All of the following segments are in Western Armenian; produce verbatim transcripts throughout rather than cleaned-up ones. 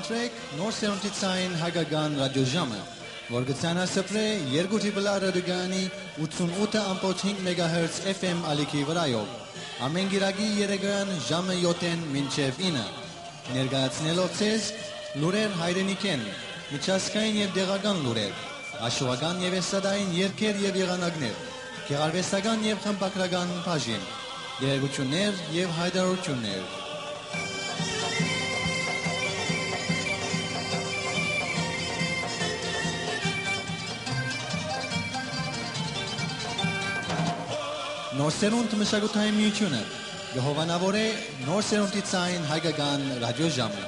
Սրեք Նոր Սերունդի Ցայն Հայկական Ռադիոժամը, որ կը ցանասփռէ երկու Տրիպլ Ա ռադիոկայանի ութսուն ութը ամբողջ հինգ մեգահերց F M ալիքի վրայով, ամէն կիրակի երեկոյան ժամը յոթ մինչեւ ինը, ներկայացնելով ձեզ լուրեր հայրենիքէն, միջազգային եւ տեղական լուրեր, հաշուական եւ էստրադային երգեր եւ եղանակներ, գեղարուեստական եւ խմբագրական բաժին, տեղեկութիւններ եւ յայտարարութիւններ։ Նոր Սերունդ մշակութային միութիւնը կը հովանաւորէ Նոր Սերունդի Ցայն Հայկական Ռադիոժամը։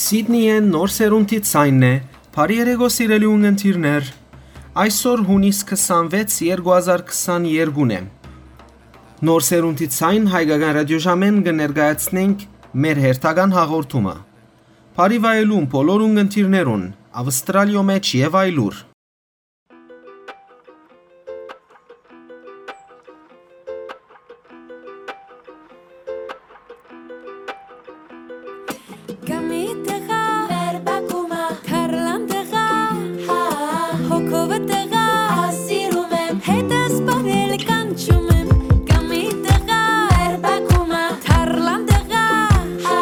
Սիդնիէն Նոր Սերունդի Ցայնն է, բարի երեկո, սիրելի ունգընտիրներ։ Այսօր, հունիս քսանվեց, երկու հազար քսաներկուն է։ Նոր Սերունդի Ցայն Հայկական Ռադիոժամէն կը ներկայացնենք մեր հերթական հաղորդումը։ Բարի վայելում բոլոր ունգընտիրներուն, Ավստրալիոյ մէջ եւ այլուր։ Կամի տղա, մեր բակումը, թարլան տղա, հա, հոգովը տղա, սիրում եմ, հետս պարել կանչում եմ, կամի տղա, մեր բակումը, թարլան տղա, հա,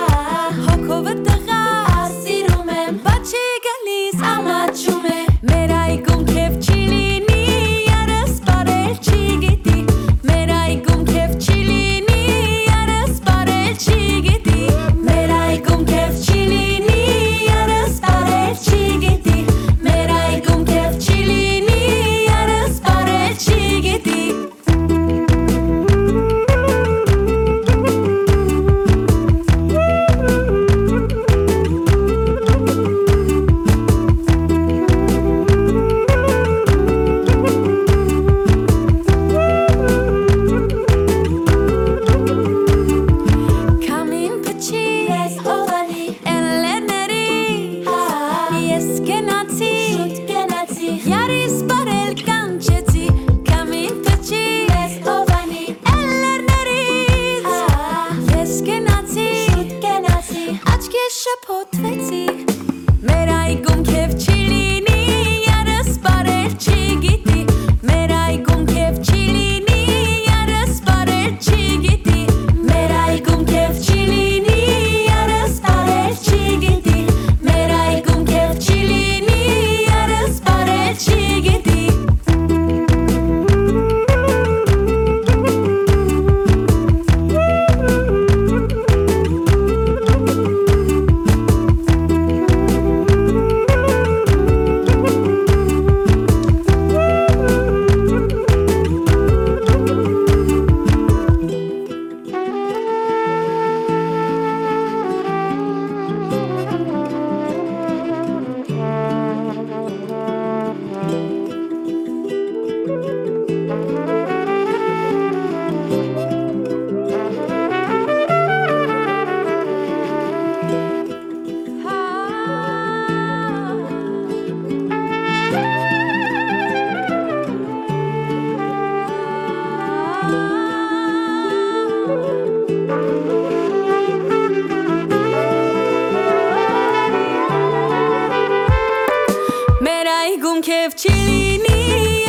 Քեֆ չի լինի,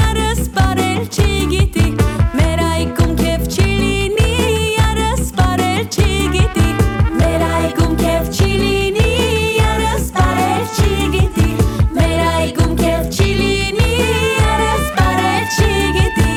արս բարել չի գիտի, մեր այգում քեֆ չի լինի, արս բարել չի գիտի, մեր այգում քեֆ չի լինի, արս բարել չի գիտի, մեր այգում քեֆ չի լինի, արս բարել չի գիտի։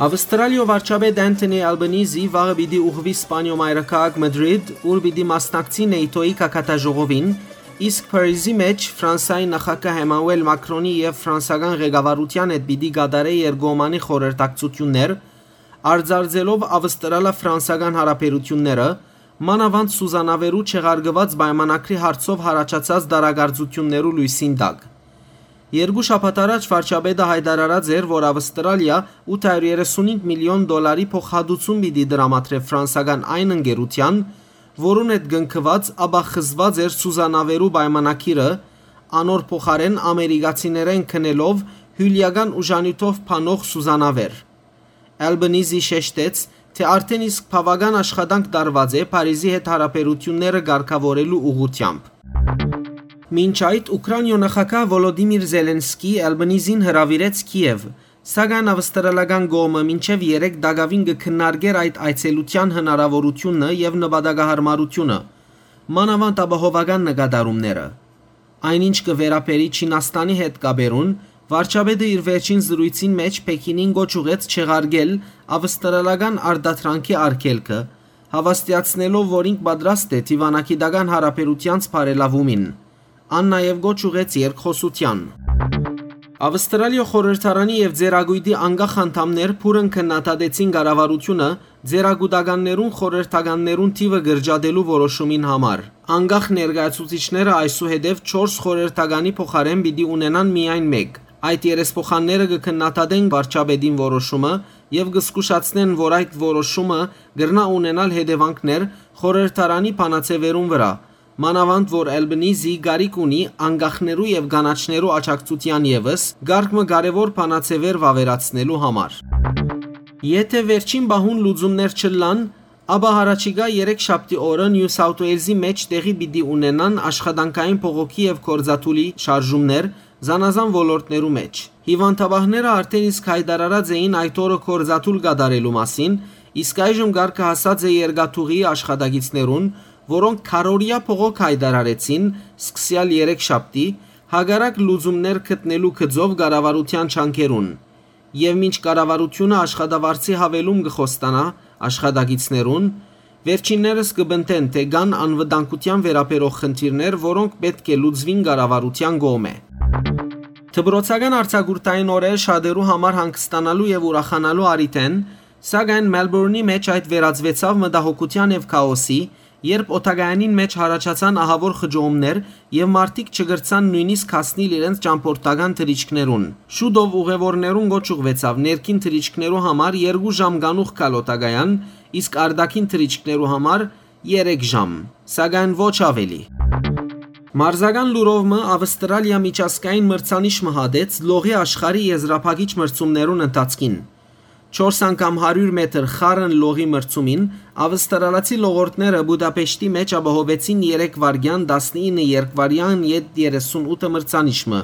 Ավստրալիոյ վարչապետ Անթոնի Ալբանիզի վաղը պիտի ուղղուի Սպանիոյ մայրաքաղաք Մադրիդ, ուր պիտի մասնակցի նեյթոյի գագաթաժողովին, իսկ Փարիզի մէջ Ֆրանսայի նախագահ Էմանուել Մակրոնի եւ ֆրանսական ղեկավարութեան հետ պիտի կատարէ երկկողմանի խորհրդակցութիւններ, արծարծելով ավստրալա-ֆրանսական յարաբերութիւնները, մանաւանդ սուզանավերու չեղարկուած պայմանագրի հարցով յառաջացած տարակարծութիւններու լոյսին տակ։ Երկու շաբաթ առաջ վարչապետը յայտարարած էր, որ Ավստրալիա ութ հարիւր երեսունհինգ միլիոն դոլարի փոխհատուցում պիտի տրամադրէ ֆրանսական այն ընկերութեան, որուն հետ կնքուած, ապա խզուած էր սուզանավերու պայմանագիրը, անոր փոխարէն ամերիկացիներէն գնելով հիւլէական ուժանիւթով փանող սուզանավեր։ Ալբանիզի շեշտեց, թէ արդէն իսկ բաւական աշխատանք տարուած է Փարիզի հետ յարաբերութիւնները կարգաւորելու ուղղութեամբ։ Մինչ այդ, Ուքրաինիոյ նախագահ Վոլոդիմիր Զելենսկի Ալբանիզին հրաւիրեց Քիեւ, սակայն ավստրալական կողմը մինչեւ երեկ տակաւին կը քննարկէր այդ այցելութեան հնարաւորութիւնը եւ նպատակահարմարութիւնը, մանաւանդ ապահովական նկատառումները։ Այն ինչ կը վերաբերի Չինաստանի հետ կապերուն, վարչապետը իր վերջին զրոյցին մէջ Պեքինին կոչ ուղղեց չեղարկել ավստրալական արտադրանքի արգելքը, հաւաստիացնելով, որ ինք պատրաստ է դիւանագիտական յարաբերութեանց բարելաւումին։ Ան նաեւ կոչ ուղղեց երկխօսութեան։ Ավստրալիոյ խորհրդարանի եւ Ձեռագոյտի անկախ անդամներ բուռն քննադատեցին կառավարութիւնը ձեռագուտականներուն խորհրդականներուն թիւը կրճատելու որոշումին համար։ Անկախ ներկայացուցիչները այսուհետեւ չորս խորհրդականի փոխարէն պիտի ունենան միայն մէկ։ Այդ երեսփոխանները կը քննադատեն վարչապետին որոշումը եւ կը զգուշացնեն, որ այդ որոշումը կրնայ ունենալ հետեւանքներ խորհրդարանի բանաձեւերուն վրայ, մանաւանդ որ Ալբանիզի կարիք ունի անկախներու եւ կանաչներու աջակցութեան եւս կարգ մը կարեւոր բանաձեւեր վաւերացնելու համար։ Եթէ վերջին պահուն լուծումներ չըլլան, ապա յառաջիկայ երեքշաբթի օրը Նիու Սաութ Ուէյլզի մէջ տեղի պիտի ունենան աշխատանքային բողոքի եւ գործադուլի շարժումներ զանազան ոլորտներու մէջ։ Հիւանդապահները արդէն իսկ յայտարարած էին այդ օրը գործադուլ կատարելու մասին, իսկ այժմ կարգը հասած է երկաթուղիի աշխատակիցներուն, որոնք քառօրեայ բողոք յայտարարեցին, սկսեալ երեքշաբթի, հակառակ լուծումներ գտնելու գծով կառավարութեան ջանքերուն։ Եւ մինչ կառավարութիւնը աշխատավարձի յաւելում կը խոստանայ աշխատակիցներուն, վերջիններս կը պնդեն, թէ կան անվտանգութեան վերաբերող խնդիրներ, որոնք պէտք է լուծուին կառավարութեան կողմէ։ Դպրոցական արձակուրդային օրեր շատերու համար հանգստանալու եւ ուրախանալու առիթ են, սակայն Մելբուրնի մէջ այդ վերածուեցաւ մտահոգութեան եւ քաոսի, երբ օդակայանին մէջ յառաջացան ահաւոր խճողումներ եւ մարդիկ չկրցան նոյնիսկ հասնիլ իրենց ճամբորդական թռիչքներուն։ Շուտով ուղեւորներուն կոչ ուղղուեցաւ ներքին թռիչքներու համար երկու ժամ կանուխ գալ օդակայան, իսկ արտաքին թռիչքներու համար երեք ժամ, սակայն ոչ աւելի։ Մարզական լուրով մը Ավստրալիա միջազգային մրցանիշ մը հատեց լողի աշխարհի եզրափակիչ մրցումներուն ընթացքին։ Չորս անգամ հարիւր մետր խառն լողի մրցումին ավստրալացի լողորդները Բուդապեշտի մէջ ապահովեցին երեք վայրկեան տասնինը երկվայրկեան յետ երեսունութը մրցանիշ մը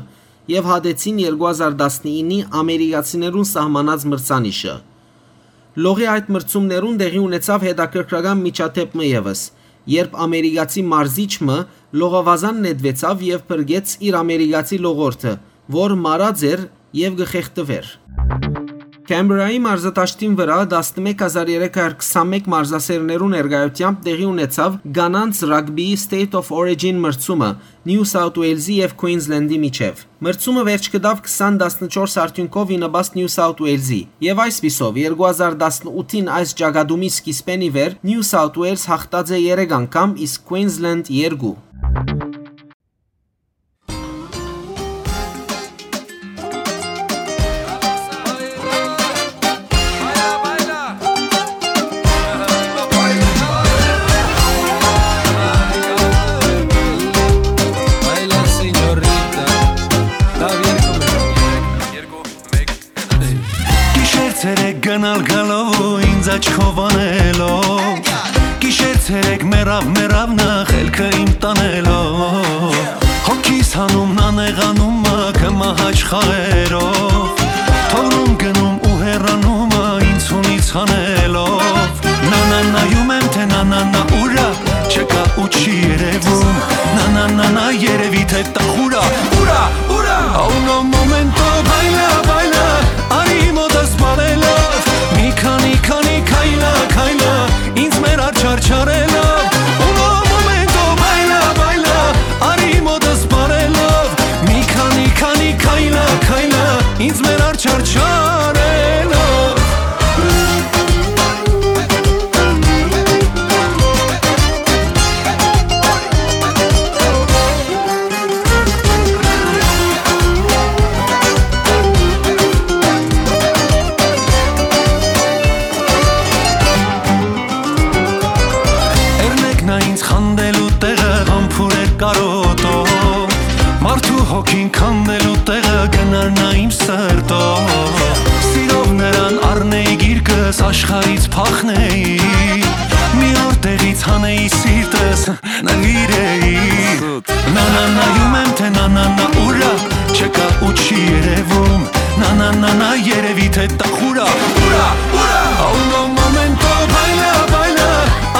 եւ հատեցին երկու հազար տասնիննի ամերիկացիներուն սահմանած մրցանիշը։ Լողի այդ մրցումներուն տեղի ունեցաւ հետաքրքրական միջադէպ մը եւս, երբ ամերիկացի մարզիչ մը լողավազան նետուեցաւ եւ փրկեց իր ամերիկացի լողորդը, որ մարած էր եւ կը խեղդուէր։ Քեմբրայի մարզադաշտին վրայ տասնմեկ հազար երեք հարյուր քսանմէկ մարզասէրներու ներկայութեամբ տեղի ունեցաւ կանանց ռագբիի State of Origin մրցումը Նիու Սաութ Ուէյլզի եւ Քուինզլենդի միջեւ։ Մրցումը վերջ գտաւ քսան տասնչորս արդիւնքով ի նպաստ Նիու Սաութ Ուէյլզի, եւ այսպիսով, երկու հազար տասնութին այս ճակատումի սկիզբէն ի վեր Նիու Սաութ Ուէյլզ յաղթած է երեք անգամ, իսկ Քուինզլենդ երկու։ Գնալ գալով ու ինձ աչքով անելով, գիշեր ցերեկ մեռաւ, մեռաւ նախ ելքը իմ տանելով։ Հոգիս հանում նանեղանում մը, կը մահաճ խաղերով, թողնում գնում ու հեռանում մը, ինձ հունից հանելով։ Նանանայում եմ, թե նանանա ուրա, չկա ու չի երևում։ Նանանանա երևի, թե տախուրա, ուրա, ուրա։ A uno momento baila, baila, արի մոտս բարելով, մի քանի, քանի քայլա, քայլա, ինձ մեր աչարչարելով։ Uno momento baila, baila, արի մոտս բարելով, մի քանի, քանի քայլա, քայլա, ինձ մեր աչարչարելով։ Էրնեքնա ինձ խանդելու տեղը, համբուրեր կարոտով, մարդու հոգին քանդելու տեղը, կնարնա իմ սրտով։ Սիրով նրան առնեի գիրկս, աշխարհից փախնեի, մի օր տեղից հանեի սիրտս, նվիրեի։ Նանանայում եմ, թե նանանա ուրա, չկա ու չի երևում։ Նանանանա երևի, թե տախուրա, ուրա, ուրա։ A uno momento baila, baila,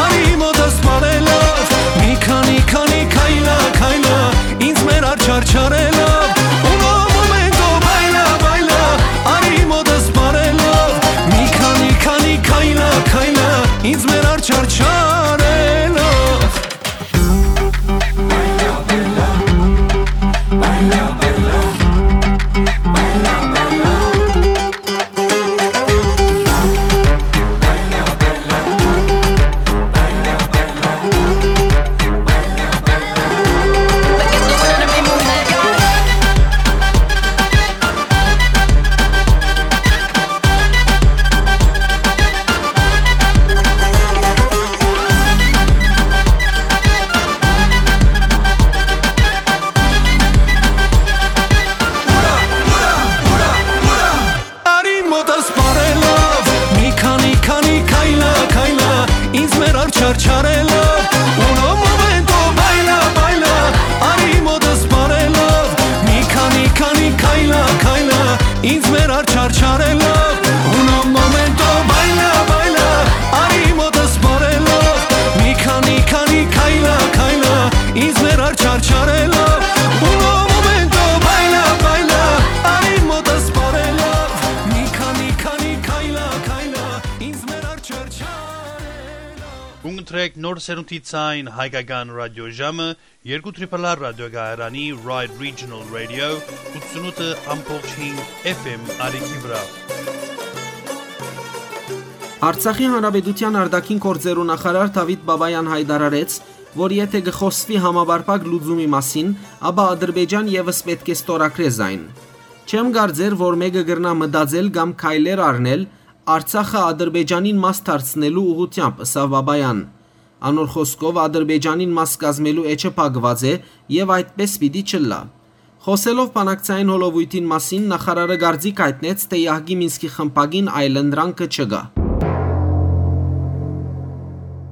արի մոտս բարելով, մի քանի, քանի քայլա, քայլա, ինձ մեր աչարչարելով։ Uno momento baila, baila, արի մոտս բարելով, մի քանի, քանի քայլա, քայլա, ինձ մեր աչարչարելով։ Արի մոտս բարելով, մի քանի, քանի քայլա, քայլա, ինձ մեր աչարչարելով։ Uno momento baila, baila, արի մոտս բարելով, մի քանի, քանի քայլա, քայլա, ինձ մեր աչարչարելով։ Uno momento baila, baila, արի մոտս բարելով, մի քանի, քանի քայլա, քայլա, ինձ մեր աչարչարելով։ Uno momento baila, baila, արի մոտս բարելով, մի քանի, քանի քայլա, քայլա, ինձ մեր աչարչարելով։ Կընտրեք Նոր Սերունդի Ձայն հայկական ռադիոժամը, երկու Triple R ռադիոկայարանի Ride Regional Radio, ութսունութ F M արիքի վրա։ Արցախի Հանրապետության արտաքին գործերու նախարար Դավիթ Բաբայան հայտարարեց, որ եթէ կը խօսուի համապարփակ լուծումի մասին, ապա Ադրբեջան եւս պէտք է ստորագրէ զայն։ Չեմ կարծեր, որ մէկը կրնայ մտածել կամ քայլեր առնել Արցախը Ադրբեջանին մաս դարձնելու ուղղութեամբ, ըսաւ Բաբայան։ Անոր խօսքով, Ադրբեջանին մաս կազմելու էջը փակուած է եւ այդպէս պիտի չըլլայ։ Խօսելով բանակցային հոլովոյթին մասին, նախարարը կարծիք հայտնեց, թէ Յահկի Մինսկի խմբակին այլընտրանքը չկայ։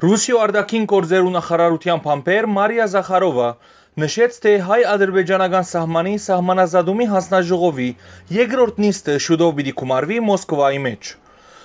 Ռուսիոյ արտաքին գործերու նախարարութեան բանբեր Մարիա Զախարովա նշեց, թէ հայ-ադրբեջանական սահմանի սահմանազատումի հանձնաժողովի երկրորդ նիստը շուտով պիտի գումարուի Մոսկվայի մէջ։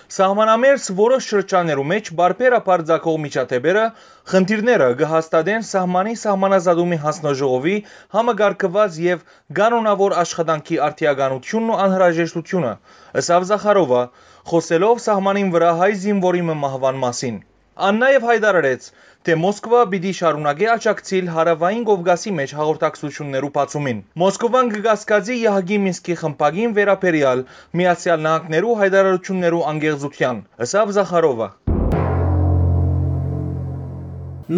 Սահմանամերձ որոշ շրջաններու մէջ պարբերաբար ծագող միջադէպերը, խնդիրները կը հաստատեն սահմանի սահմանազատումի հանձնաժողովի համակարգուած եւ կանոնաւոր աշխատանքի արդիականութիւնն ու անհրաժեշտութիւնը, ըսաւ Զախարովա, խօսելով սահմանին վրայ հայ զինուորի մը մահուան մասին։ Ան նաեւ հայտարարեց, թէ Մոսկվա պիտի շարունակէ աջակցիլ Հարաւային Կովկասի մէջ հաղորդակցութիւններու բացումին։ Մոսկովան կը կասկածի Յահկի Մինսկի խմբակին վերաբերեալ Միացեալ Նահանգներու հայտարարութիւններու անկեղծութեան, ըսաւ Զախարովա։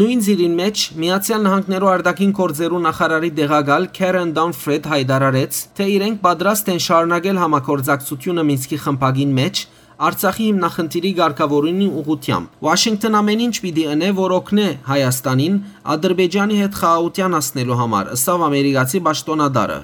Նոյն ծիրին մէջ Միացեալ Նահանգներու արտաքին գործերու նախարարի տեղակալ Քերեն Դանֆրեդ հայտարարեց, թէ իրենք պատրաստ են շարունակել համագործակցութիւնը Մինսկի խմբակին մէջ, Արցախի հիմնախնդիրի կարգաւորումի ուղղութեամբ։ Ուաշինկտոն ամեն ինչ պիտի ընէ, որ օգնէ Հայաստանին Ադրբեջանի հետ խաղաղութեան հասնելու համար, ըսաւ ամերիկացի պաշտօնատարը։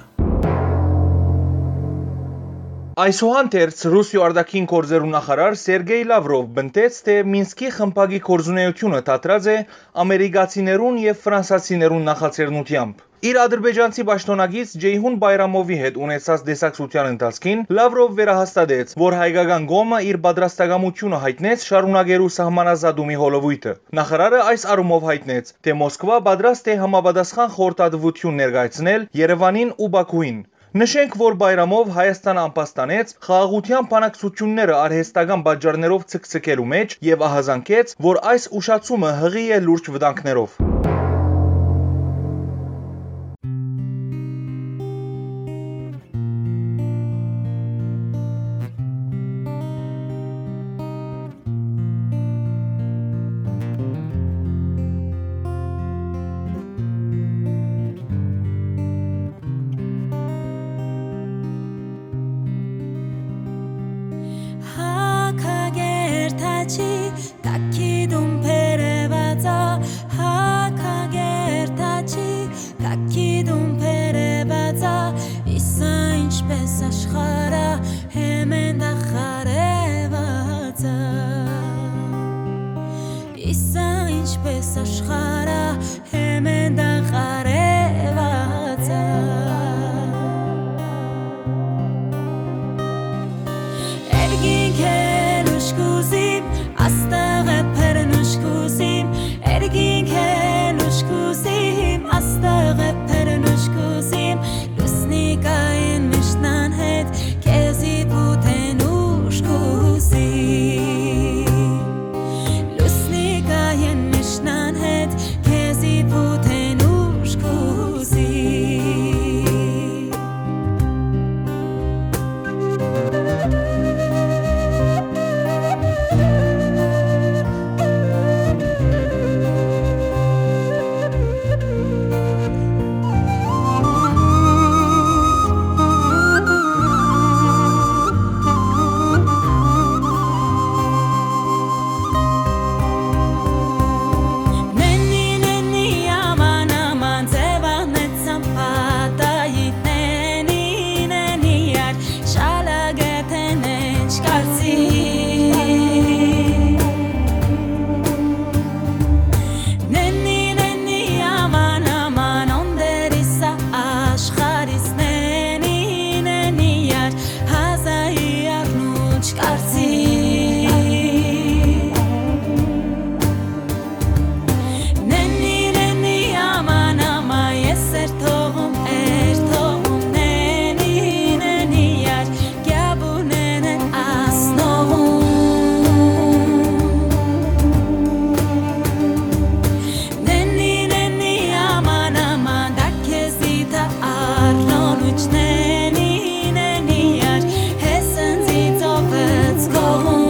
Այսուհանդերձ, Ռուսիոյ արտաքին գործերու նախարար Սերգեյ Լավրով պնդեց, թէ Մինսկի խմբակի գործունէութիւնը դադրած է ամերիկացիներուն եւ ֆրանսացիներուն նախաձեռնութեամբ։ Իր ադրբեջանցի պաշտօնակից Ջեյհուն Բայրամովի հետ ունեցած տեսակցութեան ընթացքին Լավրով վերահաստատեց, որ հայկական կողմը իր պատրաստակամութիւնը յայտնեց շարունակելու սահմանազատումի հոլովոյթը։ Նախարարը այս առումով յայտնեց, թէ Մոսկվա պատրաստ է համապատասխան խորհրդատուութիւն ներկայացնել Երեւանին ու Պաքուին։ Նշենք, որ Բայրամով Հայաստանը ամբաստանեց խաղաղութեան բանակցութիւնները արհեստական պատճառներով ցկցկելու մէջ եւ ահազանգեց, որ այս ուշացումը յղի է լուրջ վտանգներով։ Հակագերտաչի տակի դուն բերեւածա, հակագերտաչի տակի դուն բերեւածա, իսա ինչպես աշխարհը հեմեն դախարեւածա, իսա ինչպես աշխարհը հեմեն դախարեւածա։ Երկինքէն ուշ կուզիմ, աստղը բերնուշ կուզիմ, երկինքէն ուշ կուզիմ, աստղը բերնուշ կուզիմ, լուսնի կային միշտ անհետ, քեզի պուտեն ուշ կուզիմ։ Լուսնի կայեն միշտ անհետ, քեզի պուտեն ուշ կուզի։ Նենի, նենի, աման, աման, ձեւանեցան պատայի, նենի, նենի, ար, շալագեթեն էջ կարծի։ Նենի, նենի, աման, աման, օնդերիսա աշխարհիս, նենի, նենի, ար, հազայի առնուչ կարծի։ Նենի, նենի, աման, ամա, ես էր թողում, էր թողում, նենի, նենի, ար, կյաբունեն էր ասնողում։ Նենի, նենի, աման, աման, դա քեզի թա առնոնուչ, նենի, նենի, ար, հեսնձի ծովեց կողում։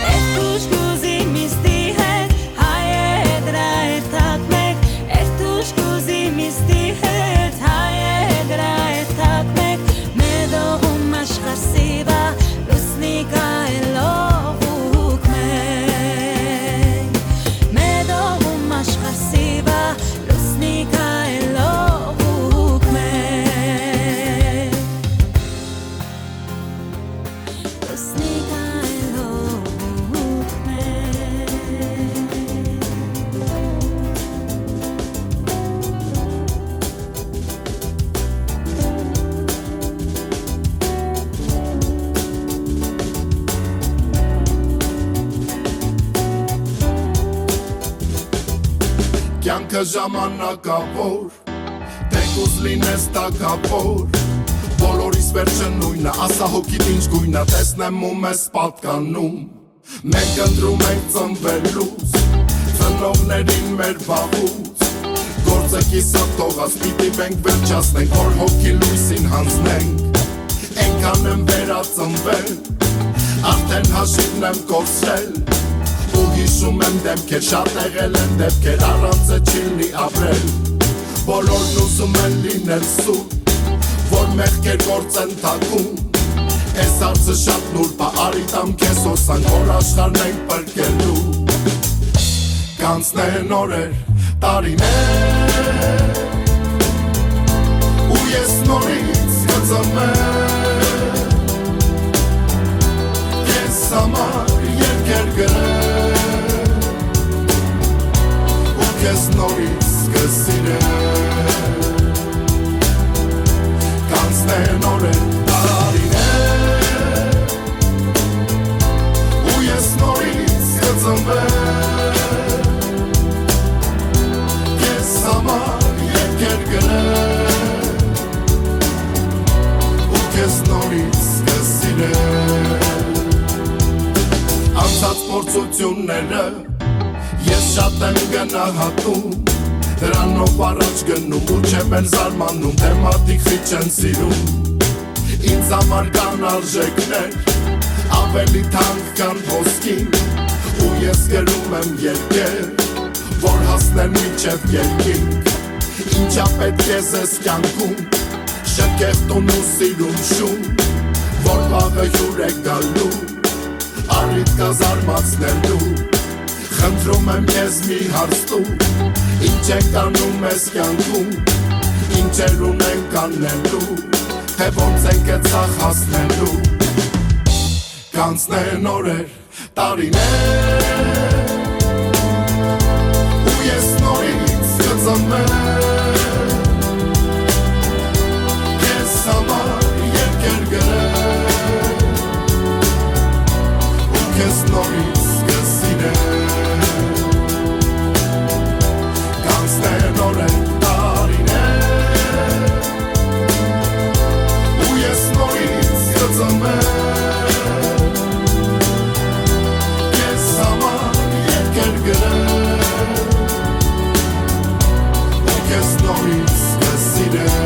Երթուշ կուզի միստի հետ, հայ է դրա երթակ մեկ, երթուշ կուզի միստի հետ, հայ է դրա երթակ մեկ, մետողում աշխարհ սիվա, լուսնի կայլող ուք մեկ, մետողում աշխարհ սիվա, լուսնի կայլող ուք մեկ։ Կյանքը ժամանակավոր, թեկուզ լինես թագավոր, բոլորիս վերջը նույնը, ասա հոգիդ ինչ գույնը, տեսնեմ ու մեզ պատկանում։ Մենք ընտրում ենք ծնվելուց, ծնողներին մեր վաղուց, Գործը կիսատ թողած պիտի մենք վերջացնենք, որ հոգի լույսին հանձնենք։ Էնքան եմ վերածնվել, արդեն հաշիվն եմ կորցրել, ու հիշում եմ դեմքեր, շատ եղել են դեպքեր, առանց է չի լինի ապրել։ Բոլորն ուզում են լինել սուտ, որ մեղքեր գործեն թաքուն։ Էս հարցը շատ նուրբ ա, արի տամ քեզ հոսանք, որ աշխարհն ենք պրկելու։ Կանցնեն օրեր, տարիներ, ու ես նորից կծնվեմ, քեզ համար երկեր գրեմ, ու քեզ նորից կսիրեմ։ Կանցնեն օրեր, տարիներ, ու ես նորից կծնվեմ, քեզ համար երկեր գրեմ, ու քեզ նորից կսիրեմ։ Անցած փորձությունները ես շատ եմ գնահատում, դրանով առաջ գնում ու չեմ էլ զարմանում, թե մարդիկ խիչ են սիրում։ Ինձ համար կան արժեքներ, ավելի թանկ քան ոսկին, ու ես գրում եմ երկեր, որ հասնեն մինչև երկինք։ Ինչա պետք է զես կյանքում, շքեղ տուն ու սիրուն շուն, որ վաղը հյուր է գալու, առիթ կա զարմացնելու։ Խնդրում եմ քեզ մի հարց տու, ինչ ենք անում ես կյանքում, ինչեր ունենք անելու, թե ոնց ենք է ցախ հասնելու։ Կանցնեն օրեր, տարիներ, ու ես նորից կծնվեմ, քեզ համար երկեր գրեմ, ու քեզ նորից կսիրեմ։ Կանցնեն օրեր, տարիներ, ու ես նորից կծնվեմ, քեզ համար երկեր գրեմ, ու քեզ նորից կսիրեմ։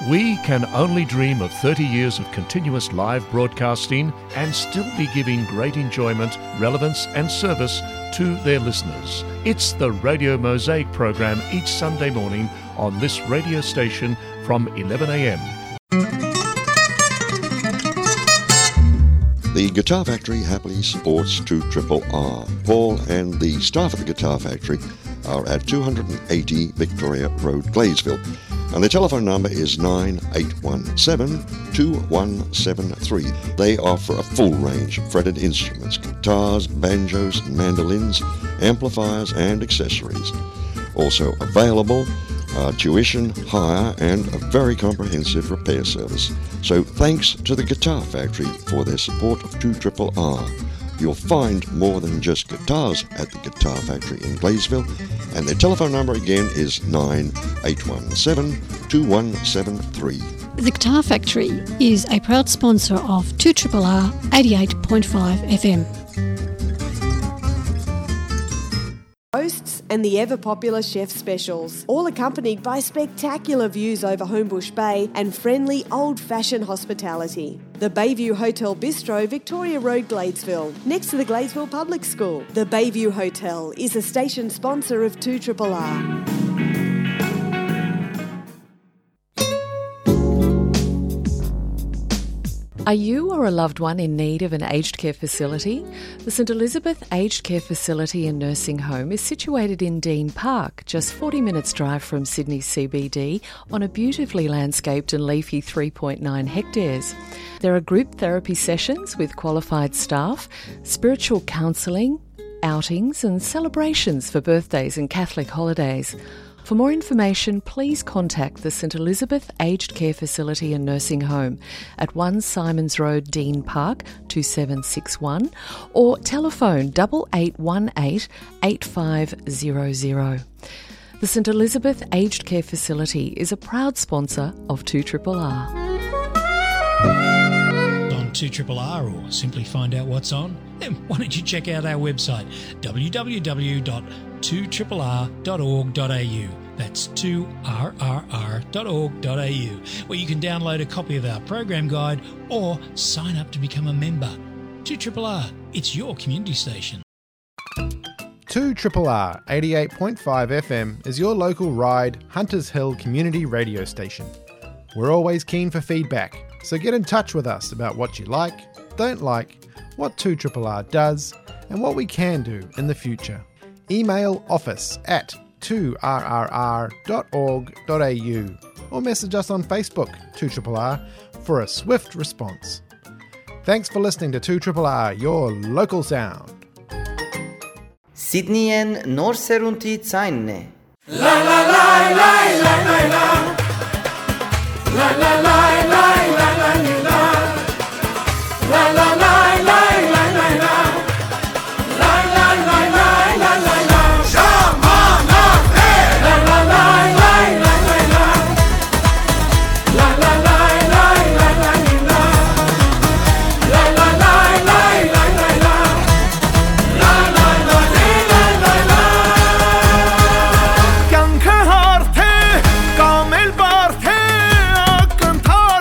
We can only dream of thirty years of continuous live broadcasting and still be giving great enjoyment, relevance, and service to their listeners. It's the Radio Mosaic program each Sunday morning on this radio station from eleven a.m. The Guitar Factory happily supports two triple R. Paul and the staff at the Guitar Factory are at two hundred eighty Victoria Road, Gladesville. And the telephone number is nine eight one seven, two one seven three. They offer a full range of fretted instruments, guitars, banjos, mandolins, amplifiers, and accessories. Also available are tuition, hire, and a very comprehensive repair service. So thanks to the Guitar Factory for their support of two triple R. You'll find more than just guitars at the Guitar Factory in Gladesville, and their telephone number again is nine eight one seven two one seven three. The Guitar Factory is a proud sponsor of two triple R eighty-eight point five F M. Hosts and the ever popular chef specials, all accompanied by spectacular views over Homebush Bay and friendly old fashioned hospitality. The Bayview Hotel Bistro, Victoria Road, Gladesville, next to the Gladesville Public School. The Bayview Hotel is a station sponsor of two triple R. Are you or a loved one in need of an aged care facility? The St Elizabeth Aged Care Facility and Nursing Home is situated in Dean Park, just forty minutes' drive from Sydney C B D, on a beautifully landscaped and leafy three point nine hectares. There are group therapy sessions with qualified staff, spiritual counselling, outings and celebrations for birthdays and Catholic holidays. For more information, please contact the St Elizabeth Aged Care Facility and Nursing Home at one Simons Road, Dean Park, two seven six one, or telephone double eight one eight eight five zero zero. The St Elizabeth Aged Care Facility is a proud sponsor of two triple R. On two triple R, or simply find out what's on, then why don't you check out our website, w w w dot two triple r dot org dot a u. That's two r r r dot org dot a u, where you can download a copy of our program guide or sign up to become a member. two triple R, it's your community station. two triple R eighty-eight point five F M is your local Ryde, Hunters Hill community radio station. We're always keen for feedback, so get in touch with us about what you like, don't like, what two triple R does, and what we can do in the future. Email office at two r r r dot org dot a u or message us on Facebook, two triple R, for a swift response. Thanks for listening to two triple R, your local sound. Սիդնիեն նոր սերունդի ձայնն է։ Կյանքը հարթ է, կամ էլ բարդ է, ակնթարթ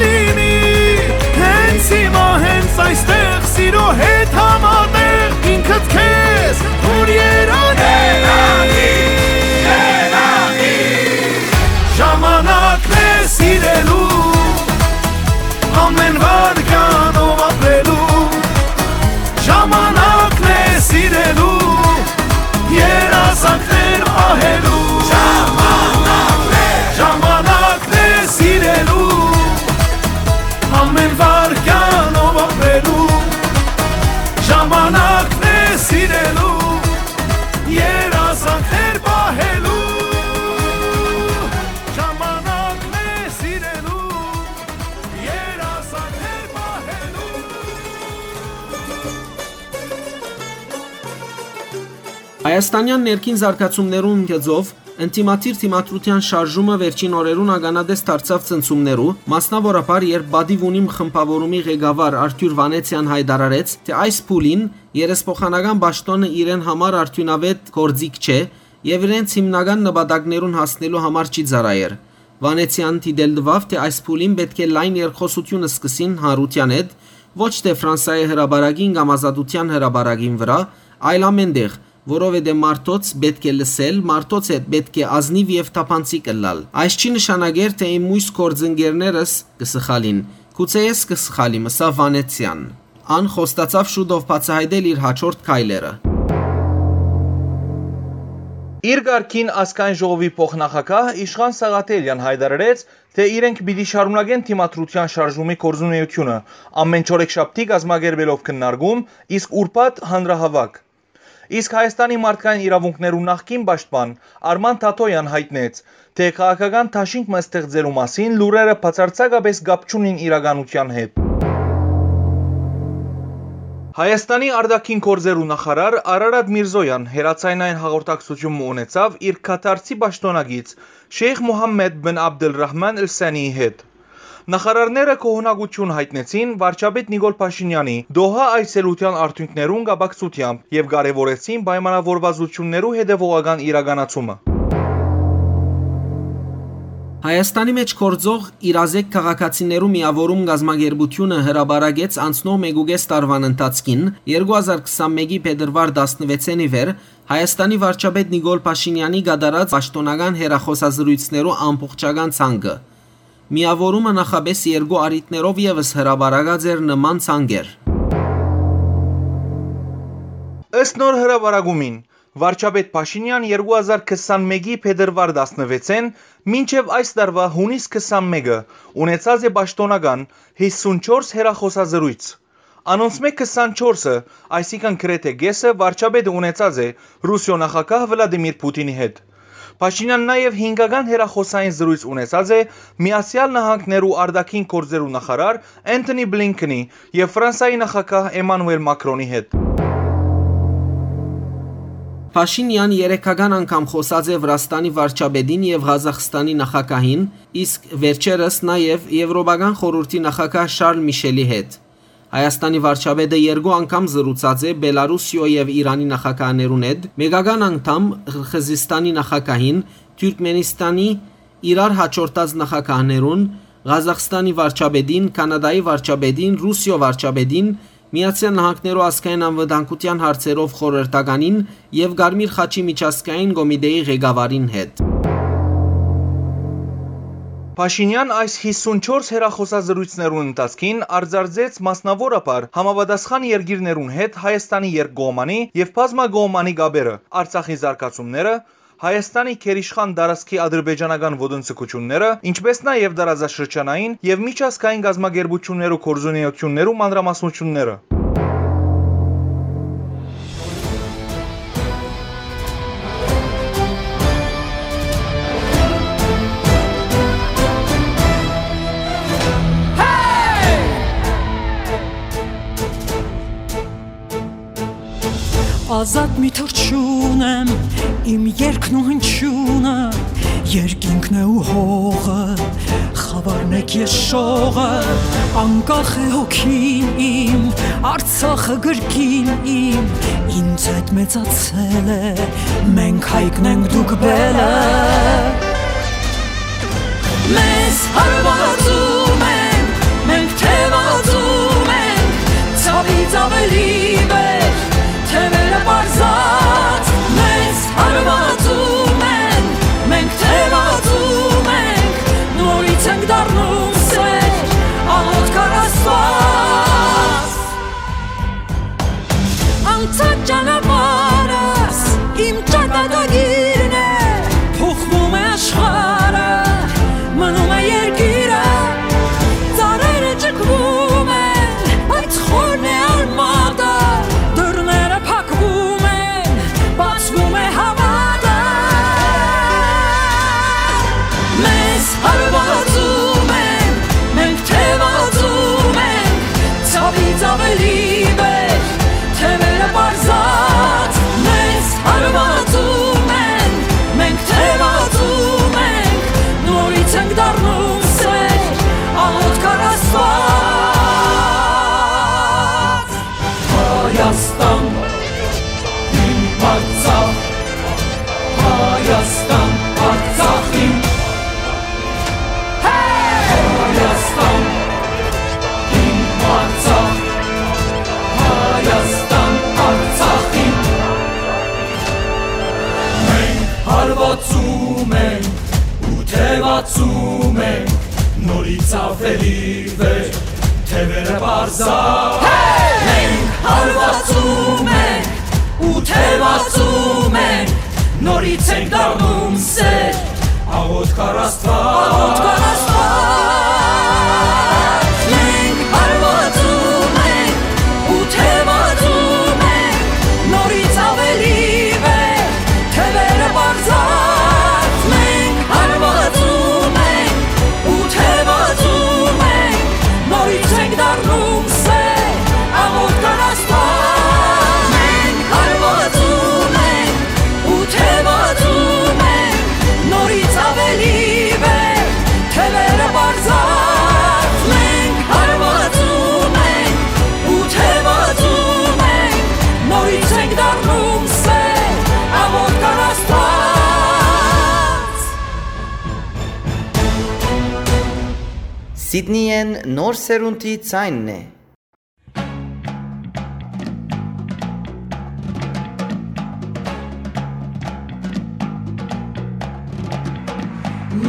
Դիմի, հենց հիմա, հենց այստեղ, սիրո հետ համատեղ ինքդ քեզ որ երանի։ Ժամանակն է սիրելու, ամեն վարքյանով ապրելու։ Ժամանակն է սիրելու, երազանքներ պահելու։ Ժամանակն է, ժամանակն է սիրելու, ամեն վարքյանով ապրելու։ Ժամանակն է սիրելու, երազանքներ պահելու։ Ժամանակն է սիրելու, երազանքներ պահելու։ Հայաստանեան ներքին զարգացումներուն գծով ընդդիմադիր դիմադրութեան շարժումը վերջին օրերուն ականատես դարձաւ ցնցումներու, մասնաւորաբար երբ Պատիւ ունիմ խմբաւորումի ղեկավար Արթուր Վանեցեան յայտարարեց, թէ այս փուլին երեսփոխանական պաշտօնը իրեն համար արդիւնաւետ գործիք չէ եւ իրենց հիմնական նպատակներուն հասնելու համար չի ծառայեր։ Վանեցեան դիտել տուաւ, թէ այս փուլին պէտք է լայն երկխօսութիւն սկսին հանրութեան հետ, ոչ թէ Ֆրանսայի հրապարակին կամ Ազատութեան հրապարակին վրայ, այլ ամեն տեղ, որովհետեւ մարդոց պէտք է լսել, մարդոց հետ պէտք է ազնիւ եւ թափանցիկ ըլլալ։ Այս չի նշանակեր, թէ իմ մոյս գործընկերներս կը սխալին։ Գուցե ես կը սխալիմ, ըսաւ Վանեցեան։ Ան խոստացաւ շուտով բացայայտել իր հաջորդ քայլերը։ Իր կարգին Ազգային ժողովի փոխնախագահ Իշխան Սաղաթելեան յայտարարեց, թէ իրենք պիտի շարունակեն դիմադրութեան շարժումի գործունեութիւնը, ամեն չորեքշաբթի կազմակերպելով քննարկում, իսկ ուրբաթ՝ հանրահաւաք։ Իսկ Հայաստանի մարդկային իրաւունքներու նախկին պաշտպան Արման Թաթոյեան յայտնեց, թէ քաղաքական դաշինք մը ստեղծելու մասին լուրերը բացարձակապէս կապ չունին իրականութեան հետ։ Հայաստանի արտաքին գործերու նախարար Արարատ Միրզոյան հեռաձայնային հաղորդակցութիւն մը ունեցաւ իր Քաթարցի պաշտօնակից Շեյխ Մուհամմեդ բին Աբդըլրահման Ալ Սանիի հետ։ Նախարարները գոհունակութիւն յայտնեցին վարչապետ Նիկոլ Փաշինեանի Դոհա այցելութեան արդիւնքներուն կապակցութեամբ եւ կարեւորեցին պայմանաւորուածութիւններու հետեւողական իրականացումը։ Հայաստանի մէջ գործող իրազեկ քաղաքացիներու միաւորում կազմակերպութիւնը հրապարակեց անցնող մէկուկէս տարուան ընթացքին, երկու հազար քսանմէկի փետրուար տասնվեցէն ի վեր, Հայաստանի վարչապետ Նիկոլ Փաշինեանի կատարած պաշտօնական հեռախօսազրոյցներու ամբողջական ցանկը։ Միաւորումը նախապէս երկու առիթներով եւս հրապարակած էր նման ցանկեր։ Ըստ նոր հրապարակումին, վարչապետ Փաշինեան երկու հազար քսանմէկի փետրուար տասնվեցէն մինչեւ այս տարուայ յունիս քսանմէկը ունեցած է պաշտօնական հիսունչորս հեռախօսազրոյց։ Անոնցմէ քսանչորսը, այսինքն՝ գրեթէ կէսը, վարչապետը ունեցած է Ռուսիոյ նախագահ Վլադիմիր Փութինի հետ։ Փաշինեան նաեւ հինգական հեռախօսային զրոյց ունեցած է Միացեալ Նահանգներու արտաքին գործերու նախարար Էնթոնի Բլինքենի եւ Ֆրանսայի նախագահ Էմանուել Մակրոնի հետ։ Փաշինեան երեքական անգամ խօսած է Վրաստանի վարչապետին եւ Ղազախստանի նախագահին, իսկ վերջերս նաեւ Եվրոպական խորհուրդի նախագահ Շարլ Միշելի հետ։ Հայաստանի վարչապետը երկու անգամ զրուցած է Բելարուսիոյ եւ Իրանի նախագահներուն հետ, մէկական անգամ Ղրղըզիստանի նախագահին, Թուրքմենիստանի իրար հաջորդած նախագահներուն, Ղազախստանի վարչապետին, Քանադայի վարչապետին, Ռուսիոյ վարչապետին, Միացեալ Նահանգներու ազգային անվտանգութեան հարցերով խորհրդականին եւ Կարմիր խաչի միջազգային կոմիտեի ղեկավարին հետ։ Փաշինեան այս հիսունչորս հեռախօսազրոյցներուն ընթացքին արձանագրեց մասնաւորաբար համապատասխան երկիրներուն հետ Հայաստանի երկկողմանի եւ բազմակողմանի կապերը, Արցախի զարգացումները, Հայաստանի գերիշխան տարածքի ադրբեջանական ոտնձգութիւնները, ինչպէս նաեւ տարածաշրջանային եւ միջազգային կազմակերպութիւններու գործունեութիւններու մանրամասնութիւնները։ Ազատ մի թռչուն եմ, իմ երգն ու հնչյունը, երկինքն է ու հողը, խավարն եք ես շողը, անկախ է հոգին իմ, Արցախը գրկին իմ, ինձ հետ մեծացել է, մենք հայկն ենք, դուք բելը։ Մեզ հարվածում են, Լիվեր, թեւերը պարզա, մենք հարվածում ենք ու թեւածում ենք, նորից ենք դառնում սեր, աղոթք առ Աստված, աղոթք առ Աստված, մենք հարվածում ենք ու թեւածում ենք, նորից ավելի վեր, թեւերը պարզած, մենք հարվածում ենք ու թեւածում ենք, նորից ենք դառնում սեր, աղոթք առ Աստված, մենք հարվածում ենք ու թեւածում ենք, նորից ավելի վեր, թեւերը պարզած, մենք հարվածում ենք ու թեւածում ենք, նորից ենք դառնում սեր, աղոթք առ Աստված։ Սիդնիեն նոր սերունդի ձայնն է։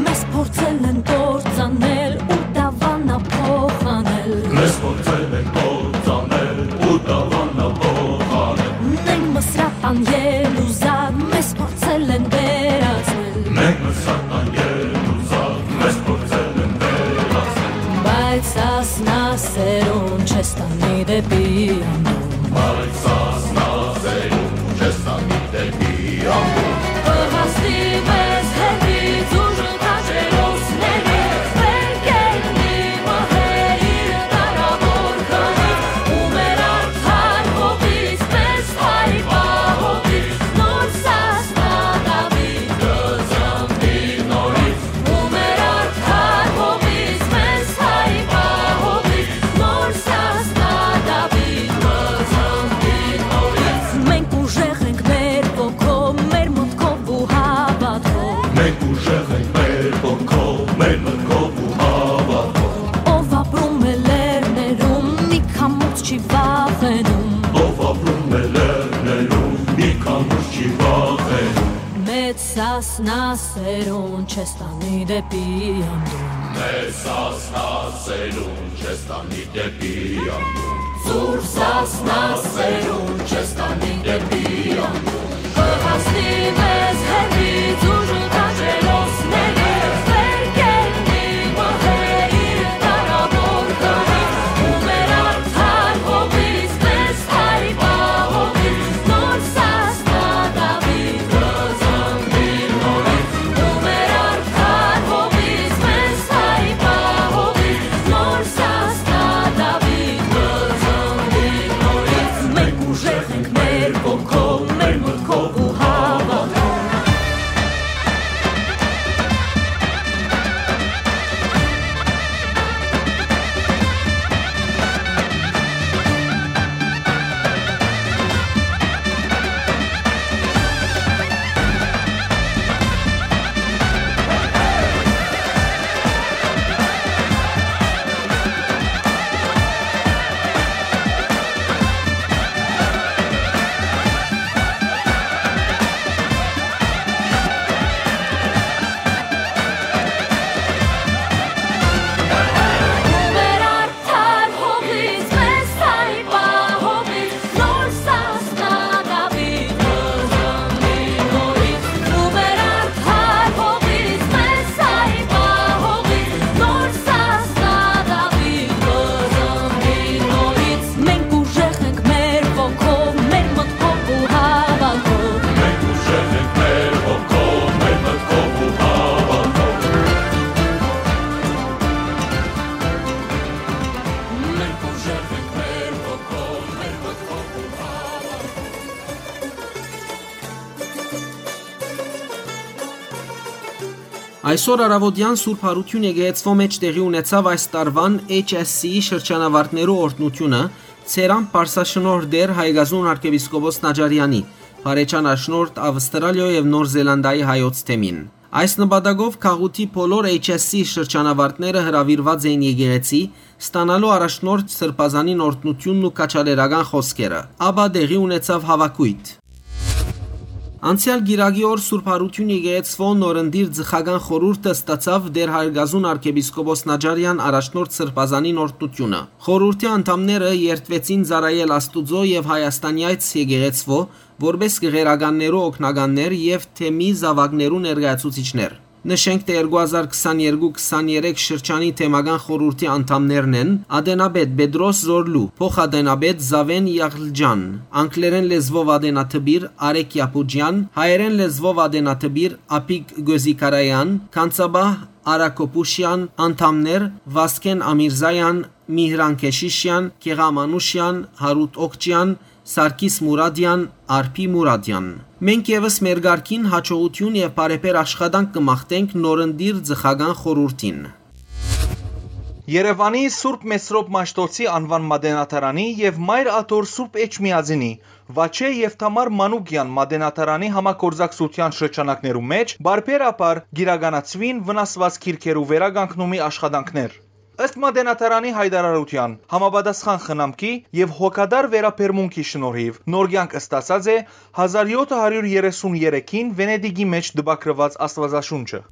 Մեզ փորձել են կործանել ու դավանա փոխանել։ Մեզ փորձել են կործանել ու դավանա փոխանել։ Մենք Մսրատան ելուզար, մեզ փորձել են վերածել։ Մենք Մսրատան ելուզար, մեզ փորձել են վերածել։ Բայց սասնա սերուն չես տանի դեպի անդուն։ Բայց սասնա սերուն չես տանի դեպի անդուն։ Կհասնի մեզ հեռվից ուժ քաջերոսների, վեր կեննի մահը իր դարավոր գնից, ու մեր արդար հողից, մեզ հայ պահողից, նոր սասնա Դավիթ կզամբի նորից, ու մեր արդար հողից, մեզ հայ պահողից, նոր սասնա Դավիթ կզամբի նորից։ Մենք ուժեղ ենք մեր ոգով, մեր մտքով ու հավատքով։ Մենք ուժեղ ենք մեր ոգով, մեր մտքով ու հավատքով։ Ով ապրում է լեռներում, մի քամուց չի վախենում։ Ով ապրում է լեռներում, մի քամուց չի վախենում։ Մեծ սասնա սերուն չես տանի դեպի անդուն։ Մեծ սասնա սերուն չես տանի դեպի անդուն։ Ծուր սասնա սերուն չես տանի դեպի անդուն։ Կհասնի մեզ հեռվից ուժ քաջերոսների, վեր կեննի մահը իր դարավոր գնից, ու մեր արդար հողից, մեզ հայ պահողից, նոր սասնա Դավիթ կզամբի նորից, ու մեր արդար հողից, մեզ հայ պահողից, նոր սասնա Դավիթ կզամբի նորից։ Մենք ուժեղ ենք մեր ոգով, մեր մտքով ու հավատքով։ Մենք ուժեղ ենք մեր ոգով, մեր մտքով ու հավատքով։ Մենք ուժեղ ենք մեր ոգով, մեր մտքով ու հավատքով։ Մենք ուժեղ ենք մեր ոգով, մեր մտքով ու հավատքով։ Այսօր առաւօտեան Սուրբ Յարութիւն եկեղեցւոյ մէջ տեղի ունեցաւ այս տարուան H S C-ի շրջանավարտներու օրհնութիւնը, Ծերան Պարսաշնորհ Տեր Հայկազուն արքեպիսկոպոս Նաճարեանի, Փարեջան Աշնորհ Ավստրալիոյ եւ Նոր Զելանդիայի հայոց թեմին։ Այս նպատակով գաղութի բոլոր H S C շրջանավարտները հրաւիրուած էին եկեղեցի, ստանալու առաջնորդ սրբազանին օրհնութիւնն ու քաջալերական խօսքերը, ապա տեղի ունեցաւ հաւաքոյթ։ Անցեալ կիրակի օր Սուրբ Յարութիւն եկեղեցւոյ նորընտիր ծխական խորհուրդը ստացաւ Տէր Հայրգազուն արքեպիսկոպոս Նաճարեան առաջնորդ սրբազանին օրհնութիւնը։ Խորհուրդի անդամները երդուեցին ծառայել Աստուծոյ եւ Հայաստանեայց եկեղեցւոյ, որպէս գեղերականներու օգնականներ եւ թեմի զաւակներու ներկայացուցիչներ։ Նշենք թէ երկու հազար քսաներկու քսաներեք շրջանի թեմական խորհուրդի անդամներն են Ատենապետ Պետրոս Զորլու, փոխատենապետ Զաւէն Յաղլճան, անգլերէն լեզուով ատենատպիր Արեգ Յապուճեան, հայերէն լեզուով ատենատպիր Աբիկ Գոզիկարեան, Քանցապահ Արա Քոփուշեան, անդամներ Վասկէն Ամիրզաեան, Միհրան Քեշիշեան, Գեղամ Անուշեան, Յարութ Օքճեան, Սարգիս Մուրադեան, Արփի Մուրադեան։ Մենք եւս մեր կարգին յաջողութիւն եւ բարեբեր աշխատանք կը մաղթենք նորընտիր ծխական խորհուրդին։ Երեւանի Սուրբ Մեսրոպ Մաշտոցի անուան մատենադարանի եւ Մայր Աթոռ Սուրբ Էջմիածինի, Վաչէ եւ Թամար Մանուկեան մատենադարանի համագործակցութեան շրջանակներու մէջ բարբերաբար կիրականացուին վնասուած գիրքերու վերականգնումի աշխատանքներ։ Ըստ մատենադարանի յայտարարութեան, համապատասխան խնամքի եւ հոգատար վերաբերմունքի շնորհիւ նոր կեանք ստացած է հազար յոթը հարիւր երեսուն երեքին Վենետիկի մէջ տպագրուած Աստուածաշունչը։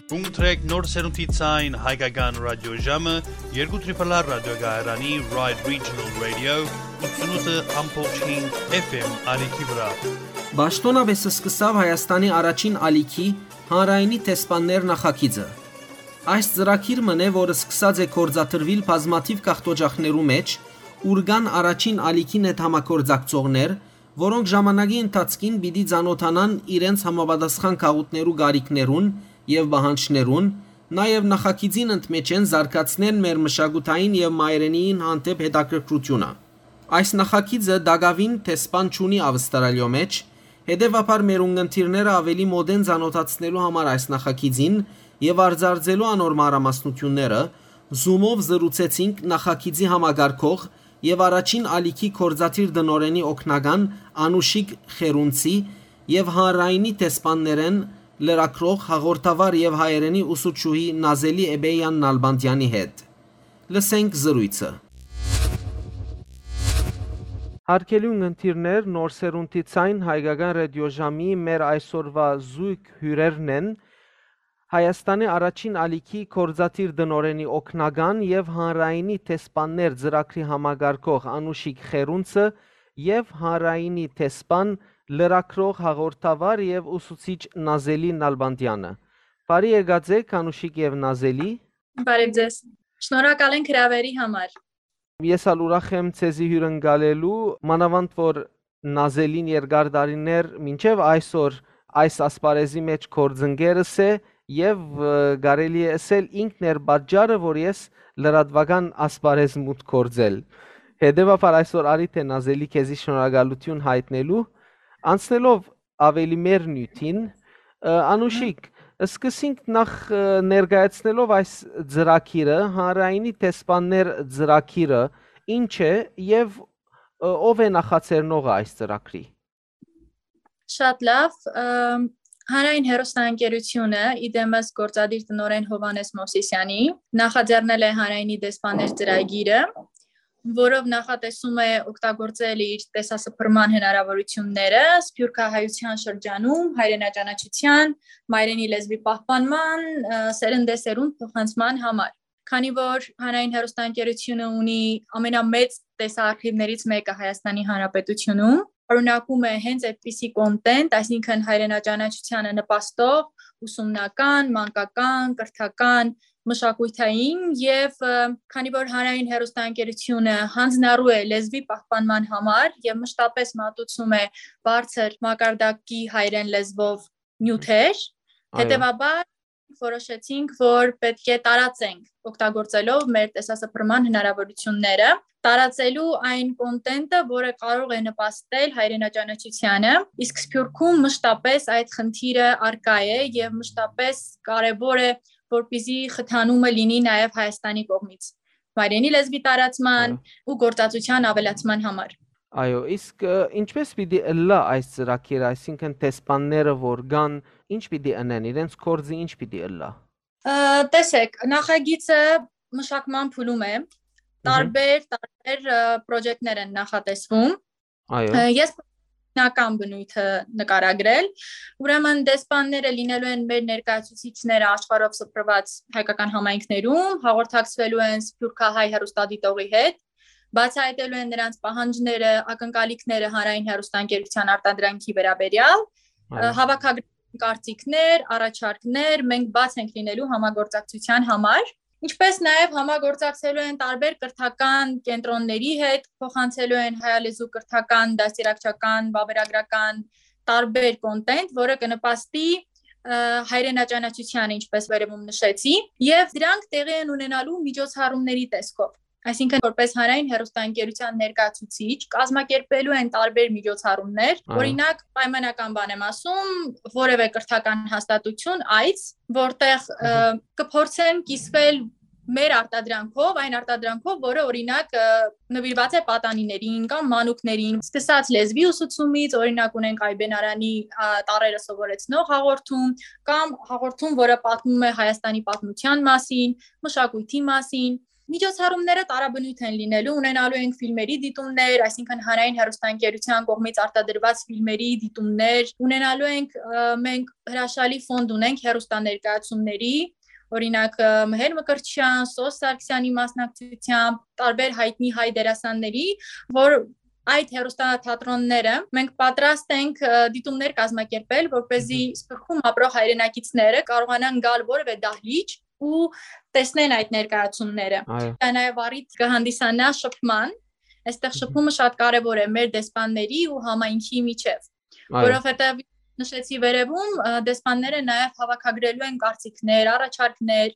Կունտրեք նոր սերունդի ցայն հայկական ռադիոժամը երկու Triple R ռադիոկայարանի Ride Regional Radio ութսունութ ամբողջ հինգ F M ալիքի վրայ։ Պաշտօնապէս սկսաւ Հայաստանի առաջին ալիքի հանրայինի դեսպաններ նախագիծը։ Այս ծրագիր մըն է, որ սկսած է գործադրուիլ բազմաթիւ գաղթօճախներու մէջ, ուր կան առաջին ալիքին հետ համագործակցողներ, որոնք ժամանակի ընթացքին պիտի ծանօթանան իրենց համապատասխան գաղութներու կարիքներուն եւ պահանջներուն, նաեւ նախագիծին ընդմէջէն զարգացնեն մեր մշակութային եւ մայրենիին հանդէպ հետաքրքրութիւնը։ Այս նախագիծը տակաւին դեսպան չունի Ավստրալիոյ մէջ, հետեւաբար մեր ունգընտիրները աւելի մօտէն ծանօթացնելու համար այս նախագիծին եւ արձարծելու անոր մանրամասնութիւնները, Zoom-ով զրուցեցինք նախագիծի համակարգող եւ առաջին ալիքի գործադիր տնօրէնի օգնական Անուշիկ Խերունցի եւ հանրայինի դեսպաններէն լրագրող, հաղորդավար եւ հայերէնի ուսուցչուհի Նազելի Էբեյան Նալբանդեանի հետ։ Լսենք զրոյցը։ Հարգելի ունգընտիրներ, Նոր Սերունդի Ձայն հայկական ռադիոժամի մեր այսօրուա զոյգ հիւրերն են Հայաստանի առաջին ալիքի գործադիր տնօրէնի օգնական եւ հանրայինի դեսպաններ ծրագրի համակարգող Անուշիկ Խերունցը եւ հանրայինի դեսպան, լրագրող, հաղորդավար եւ ուսուցիչ Նազելի Նալբանդեանը։ Բարի եկած եք, Անուշիկ եւ Նազելի։ Բարև ձեզ։ Շնորհակալ ենք հրավերի համար։ Ես ալ ուրախ եմ ձեզի հիւրընկալելու, մանաւանդ որ Նազելին երկար տարիներ մինչեւ այսօր այս ասպարեզի մէջ գործընկերս է եւ, ը, կարելի է ըսել ինքն էր պատճառը, որ ես լրատուական ասպարեզ մուտք գործել։ Հետեւաբար այսօր արի թէ Նազելի քեզի շնորհակալութիւն յայտնելու, անցնելով աւելի մեր նիւթին, ը, Անուշիկ, սկսենք նախ, ը, ներկայացնելով այս ծրագիրը, հանրայինի դեսպաններ ծրագիրը ինչ է եւ, ը, ով է նախաձեռնողը այս ծրագրի։ Շատ լավ, ը, հանրային հեռուստաընկերութիւնը, ի դեմս գործադիր տնօրէն Հովհաննէս Մովսիսեանի, նախաձեռնել է հանրայինի դեսպաններ ծրագիրը, որով նախատեսում է օգտագործել իր տեսասփռման հնարաւորութիւնները սփիւռքահայութեան շրջանում հայրենաճանաչութեան, մայրենի լեզուի պահպանման, ը, սերնդեսերունդ փոխանցման համար։ Քանի որ հանրային հեռուստաընկերութիւնը ունի ամենամեծ տեսաարխիվներից մեկը Հայաստանի Հանրապետութիւնում, պարունակում է հենց այդպիսի կոնտենտ, այսինքն հայրենաճանաչութեանը նպաստող, ուսումնական, մանկական, կրթական, մշակութային եւ, ը, քանի որ հանրային հեռուստաընկերութիւնը հանձնառու է լեզուի պահպանման համար եւ մշտապես մատուցում է բարձր մակարդակի հայերէն լեզուով նիւթեր, Այո։ հետեւաբար որոշեցինք, որ պէտք է տարածենք օգտագործելով մեր տեսասփռման հնարաւորութիւնները, տարածելու այն կոնտենտը, որը կարող է նպաստել հայրենաճանաչութեանը, իսկ Սփիւռքում մշտապես այդ խնդիրը առկայ է եւ մշտապես կարեւոր է, որպեսզի խթանումը լինի նաեւ Հայաստանի կողմից մայրենի լեզուի տարածման Այո։ ու գործածության ավելացման համար։ Այո, իսկ, ը, ինչպես պիտի ըլլայ այս ծրագիրը, այսինքն դեսպանները որ կան, ինչ պիտի ընեն, իրենց գործը ինչ պիտի ըլլայ։ Ը, տեսեք, նախագիծը մշակման փուլում է, Մհմ։ տարբեր, տարբեր, ը, պրոյեկտներ են նախատեսվում։ Այո։ Ը, ես հիմնական բնույթը նկարագրել, ուրեմն դեսպանները լինելու են մեր ներկայացուցիչները աշխարհով սփռված հայկական համայնքներում, հաղորդակցվելու են սփիւռքահայ հեռուստադիտողի հետ, բացահայտելու են նրանց պահանջները, ակնկալիքները հանրային հեռուստաընկերութեան արտադրանքի վերաբերեալ, Այո։ ը, հավաքագրեն կարծիքներ, առաջարկներ, մենք բաց ենք լինելու համագործակցության համար, ինչպես նաև համագործակցելու են տարբեր կրթական կենտրոնների հետ, փոխանցելու են հայալեզու կրթական, դաստիարակչական, վավերագրական տարբեր կոնտենտ, որը կնպաստի, ը, հայրենաճանաչությանը, ինչպես վերևում նշեցի, եւ դրանք տեղի են ունենալու միջոցառումների տեսքով։ Այսինքն, որպես հանրային հեռուստաընկերութեան ներկայացուցիչ, կազմակերպելու են տարբեր միջոցառումներ, Այո։ օրինակ, պայմանական բան եմ ասում, որևէ կրթական հաստատություն, այց, որտեղ, ը, Մհմ։ կփորձեն կիսվել մեր արտադրանքով, այն արտադրանքով, որը, օրինակ, ը, նվիրված է պատանիներին կամ մանուկներին, սկսած լեզվի ուսուցումից, օրինակ, ունենք Այբեն Արանի, ա, տառերը սովորեցնող հաղորդում, կամ հաղորդում, որը պատմում է Հայաստանի պատմության մասին, մշակույթի մասին։ Միջոցառումները տարաբնույթ են լինելու, ունենալու ենք ֆիլմերի դիտումներ, այսինքն հանրային հեռուստաընկերության կողմից արտադրված ֆիլմերի դիտումներ, ունենալու ենք, ը, մենք հրաշալի ֆոնդ ունենք հեռուստաներկայացումների, օրինակ, ը, Մհեր Մկրտչյան, Սոս Սարգսյանի մասնակցությամբ, տարբեր հայտնի հայ դերասանների, որ այդ հեռուստաթատրոնները մենք պատրաստ ենք, ը, դիտումներ կազմակերպել, որպեսզի Մհմ։ Սփյուռքում ապրող հայրենակիցները կարողանան գալ որևէ դահլիճ ու տեսնեն այդ ներկայացումները։ Այո։ Դա նաև առիթ կհանդիսանա շփման, Այստեղ շփումը շատ կարեւոր է մեր դեսպանների ու համայնքի միջեւ, Այո։ որովհետեւ նշեցի վերևում, ը, դեսպանները նաեւ հավաքագրելու են կարծիքներ, առաջարկներ։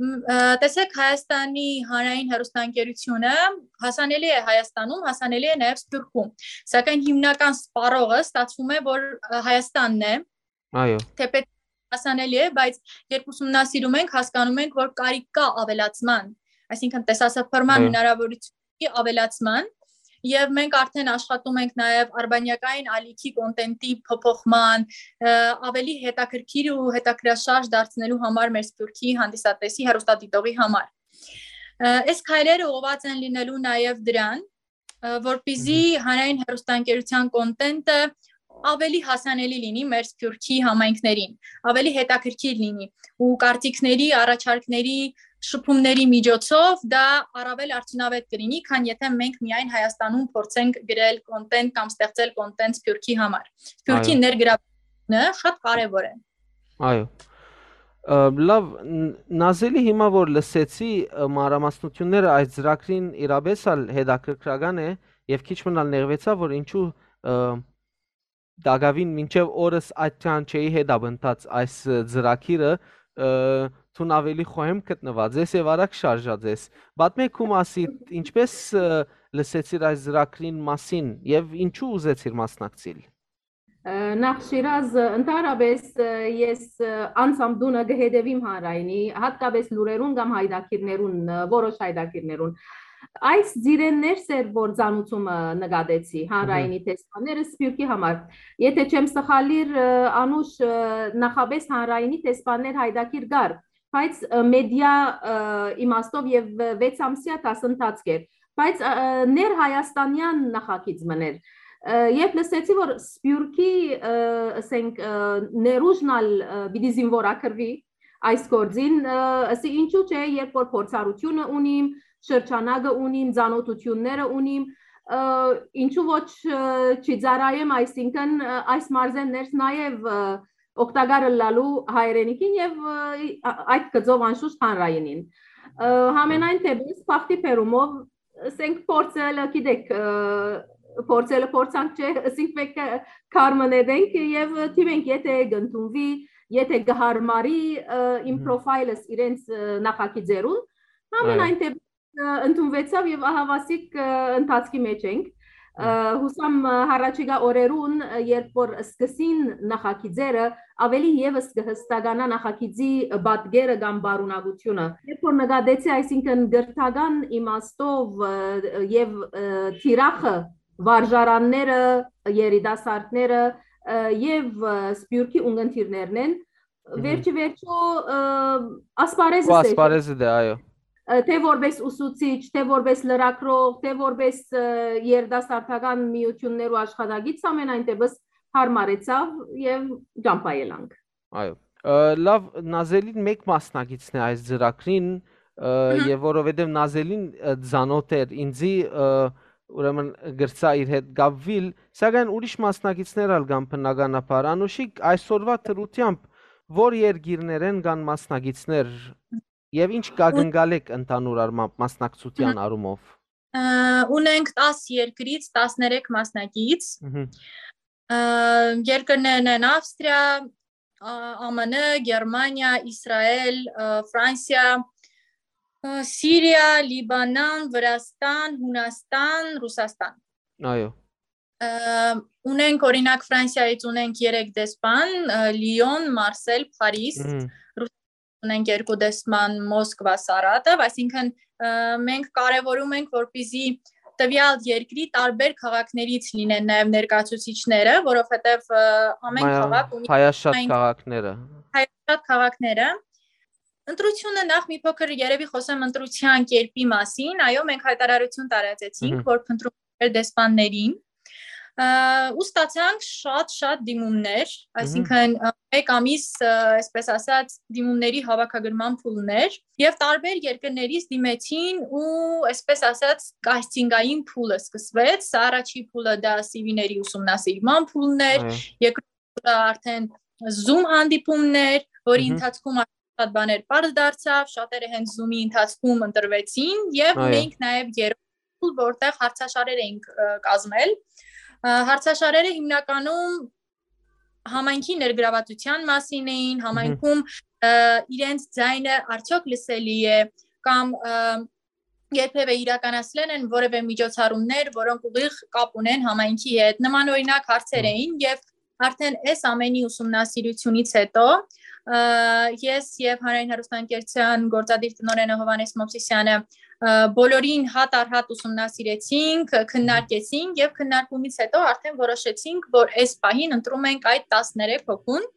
Մ, ը, տեսեք, Հայաստանի հանրային հեռուստաընկերությունը հասանելի է Հայաստանում, հասանելի է նաեւ Սփյուռքում, սակայն հիմնական սպառողը ստացվում է, որ, ը, Հայաստանն է, Այո։ թեպետ հասանելի է, բայց երբ ուսումնասիրում ենք, հասկանում ենք, որ կարիք կա ավելացման, այսինքն տեսասփռման Այո։ հնարավորությունի ավելացման, եւ մենք արդեն աշխատում ենք նաեւ արբանյակային ալիքի կոնտենտի փոփոխման, ը, ավելի հետաքրքիր ու հետաքրքրաշարժ դարձնելու համար մեր Սփյուռքի հանդիսատեսի, հեռուստադիտողի համար։ Ը, այս քայլերը ուղղված են լինելու նաեւ դրան, ը, որպեսզի Մհմ։ հանրային հեռուստաընկերության կոնտենտը ավելի հասանելի լինի մեր Սփյուռքի համայնքներին, ավելի հետաքրքիր լինի ու կարծիքների, առաջարկների, շփումների միջոցով դա առավել արդյունավետ կլինի, քան եթե մենք միայն Հայաստանում փորձենք գրել կոնտենտ կամ ստեղծել կոնտենտ Սփյուռքի համար։ Սփյուռքի Այո։ ներգրավությունը շատ կարեւոր է։ Այո։ Ը, լավ, ն-, Նազելի, հիմա որ լսեցի, ը, մանրամասնությունները այս ծրագրին, իրապէս ալ հետաքրքրական է, եւ քիչ մնալ նեղվեցա, որ ինչու, ը, տակաւին մինչեւ օրս այդքան չէի հետապնդած այս, ը, ծրագիրը, ը, դուն ավելի խոհեմ գտնուած ես եւ արագ շարժած ես։ Պատմէ քու մասի, ինչպէս, ը, լսեցիր այս ծրագրին մասին եւ ինչու ուզեցիր մասնակցիլ։ Ը, նախ Շիրազ, ը, ընդհանրապես, ը, ես, ը, անձամ դունը կը հետևեմ հանրայինի, հատկապես լուրերուն կամ հայդակիրներուն, ը, որոշ հայդակիրներուն։ Այս ծիրէն ներս էր, որ ծանուցումը նկատեցի հանրայինի Մհմ։ դեսպանները Սփյուռքի համար։ Եթե չեմ սխալիր, ը, Անուշ, ը, նախապես հանրայինի դեսպաններ հայդակիր կար, բայց, ը, մեդիա, ը, իմաստով եւ, ը, վեց ամսեայ դասընթացք էր, բայց, ը, ը, ներհայաստանեան նախագիծ մըն էր։ Ը, երբ լսեցի, որ Սփյուռքի, ը, ասենք, ը, ներուժն ալ, ը, պիտի զինվորագրուի այս գործին, ը, ասի, ինչու՞ չէ, երբ որ փորձառութիւնը ունիմ, շրջանակը ունիմ, ծանօթութիւնները ունիմ, ը, ինչու՞ ոչ, ը, չծառայեմ, այսինքն, ը, այս մարզէն ներս նաեւ, ը, օգտակար ըլլալու հայրենիքին եւ, ը, ա-, այդ գծով անշուշտ հանրայինին։ Ը, համենայն դեպս, բախտի բերումով, ասենք, փորձելը, գիտեք, ը, փորձելը փորձանք չէ, ասենք, մենք, ը, քարմը նետենք եւ դիմենք, եթե կընդունուի, եթե կհարմարի, ը, իմ Մհմ։ պրոֆայլս իրենց, ը, նախագիծերուն, Այո։ համենայն դեպս, ը, ընդունուեցաւ եւ ահավասիկ, ը, ընթացքի մեջ ենք։ Ը, Մհմ։ հուսամ, ը, հառաջիկա օրերուն, ը, երբ որ սկսին նախագիծերը, ավելի եւս կը հստականայ նախագիծի պատկերը կամ պարունակությունը։ Երբ որ նկատեցի, այսինքն, կրթական իմաստով, ը, եւ, ը, թիրախը, վարժարանները, երիտասարդները, ը, եւ, ը, Սփյուռքի ունգընտիրներն են, Մհմ։ վերջի վերջո, ը, ասպարեզս Ու է, ասպարեզը դե, այո։ ը, թէ որպես ուսուցիչ, թէ որպես լրագրող, թէ որպես, ը, երիտասարդական միութիւններու աշխատակից, ամենայն դեպս հարմարեցաւ եւ ճամբայելանք։ Այո։ Ը, լավ, Նազելին մէկ մասնակիցն է այս ծրագրին, ը, Մհմ։ եւ որովհետեւ Նազելին, ը, ծանօթ էր ինձի, ը, ուրեմն կրցայ իր հետ կապուիլ, սակայն ուրիշ մասնակիցներ ալ կան բնականաբար։ Անուշիկ, այսօրվա դրությամբ ո՞ր երկիրներէն կան մասնակիցներ եւ ինչ կակնկալեք ընդհանուր առմամբ մասնակցության Մհմ։ առումով։ Ը, ունենք տաս երկրից տասներեք մասնակից։ Մհմ։ Ը, երկրներն են Ավստրիա, ա, Ա Մ Ն, Գերմանիա, Իսրայել, ը, Ֆրանսիա, ը, Սիրիա, Լիբանան, Վրաստան, Հունաստան, Ռուսաստան։ Այո։ Ը, ունենք, օրինակ, Ֆրանսիայից ունենք երեք դեսպան, ը, Լիոն, Մարսել, Փարիզ, Մհմ։ Ռուսաստանից ունենք երկու դեսպան, Մոսկվա, Սարատով, այսինքն, ը, մենք կարևորում ենք, որպեսզի տվյալ երկրի տարբեր քաղաքներից լինեն նաև ներկայացուցիչները, որովհետև, ը, ամեն Մայա-, քաղաք ունի հայաշատ այն քաղաքները։ հայաշատ քաղաքները։ Ընտրությունը, նախ մի փոքր երևի խոսեմ ընտրության կերպի մասին, այո, մենք հայտարարություն տարածեցինք, Մհմ։ որ փնտրում էր դեսպաններին, ը, ու ստացանք շատ-շատ դիմումներ, Մհմ։ այսինքն, ը, մեկ ամիս, ը, այսպես ասած, դիմումների հավաքագրման փուլներ, և տարբեր երկրներից դիմեցին ու, այսպես ասած, կասթինգային փուլը սկսվեց, սա առաջի փուլը դա C V-ների ուսումնասիրման փուլն էր, Այո։ երկրորդ փուլը արդեն Zoom հանդիպումներ, որի Մհմ։ ընթացքում շատ բաներ պարզ դարձավ, շատերը հենց Zoom-ի ընթացքում ընտրվեցին, և Այո։ ունենք նաև երրորդ School, որտեղ հարցաշարեր էինք, ը, կազմել։ Ը, հարցաշարերը հիմնականում համայնքի ներգրավածության մասին էին, Մհմ։ Համայնքում, ը, իրենց ձայնը արդյոք լսելի է, կամ, ը, երբեւէ իրականացրել են որևէ միջոցառումներ, որոնք ուղիղ կապ ունեն համայնքի հետ։ Նման օրինակ հարցեր Մհմ։ Էին, եւ արդեն այս ամենի ուսումնասիրությունից հետո, ը, ես եւ Հանրային հեռուստաընկերության գործադիր տնօրենը Հովհաննէս Մովսիսյանը, ը, բոլորին հատ առ հատ ուսումնասիրեցինք, քննարկեցինք, եւ քննարկումից հետո արդեն որոշեցինք, որ այս պահին ընտրում ենք այդ տասներեք հոգուն,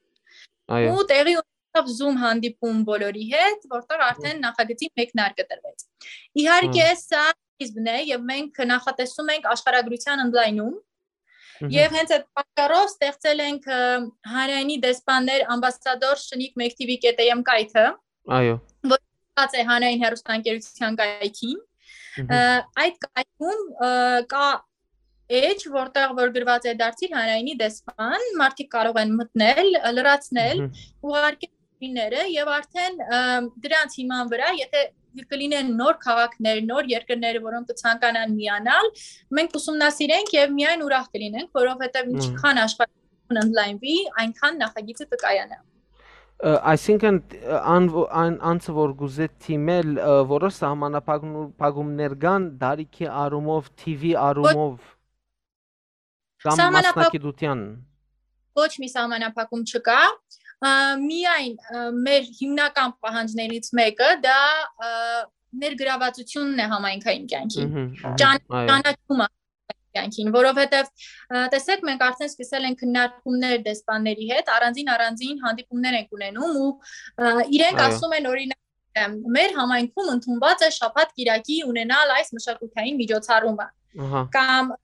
Այո։ ու տեղի ունեցավ Zoom հանդիպում բոլորի հետ, որտեղ արդեն Մհմ։ Նախագծի մեկնարկը տրվեց։ Իհարկե, Մհմ։ Սա սկիզբն է, եւ մենք նախատեսում ենք աշխարհագրության ընդլայնում, Մհմ։ Եւ հենց այդ պատճառով ստեղծել ենք, ը, Հանրայինի դեսպաններ ամբասադոր Շնիկ Մեկտիվի կետեյեմ կայքը, Այո։ Որ ստացած է Հանրային հեռուստաընկերության կայքին։ Մհմ։ Ը, այդ կայքում, ը, կա էջ, որտեղ որ գրված է «Դարձիր Հանրայինի դեսպան», մարդիկ կարող են մտնել, ը, լրացնել, Մհմ։ Ուղարկել ուրիշները, եւ արդեն, ը, դրանց հիման վրա, եթե կլինեն նոր քաղաքներ, նոր երկրներ, որոնք կցանկանան միանալ, մենք ուսումնասիրենք եւ միայն ուրախ կլինենք, որովհետեւ Մհմ։ Ինչքան աշխարհ ընդլայնվի, այնքան նախագիծը կկայանա։ Ը, այսինքն, ը, ան-, ան-, անձը, որ գուզե թիմել, ը, որոշ սահմանափակում-, փակումներ կան դարիքի առումով, թիվի Ոչ, առումով, կամ սահմանափակ-, մասնագիտության։ Ոչ մի սահմանափակում չկա, ը, միայն, ը, մեր հիմնական պահանջներից մեկը դա, ը, ներգրավածությունն է համայնքային կյանքի, Մհմ, մհմ, ճան-, այո։ Ճանաչումը կյանքին, որովհետև, ը, տեսեք, մենք արդեն սկսել ենք քննարկումներ դեսպանների հետ, առանձին-առանձին հանդիպումներ ենք ունենում ու, ը, իրենք Այո։ Ասում են, օրինակ, ը, մեր համայնքում ընդունված է շաբաթ կիրակի ունենալ այս մշակութային միջոցառումը։ Ահա։ Կամ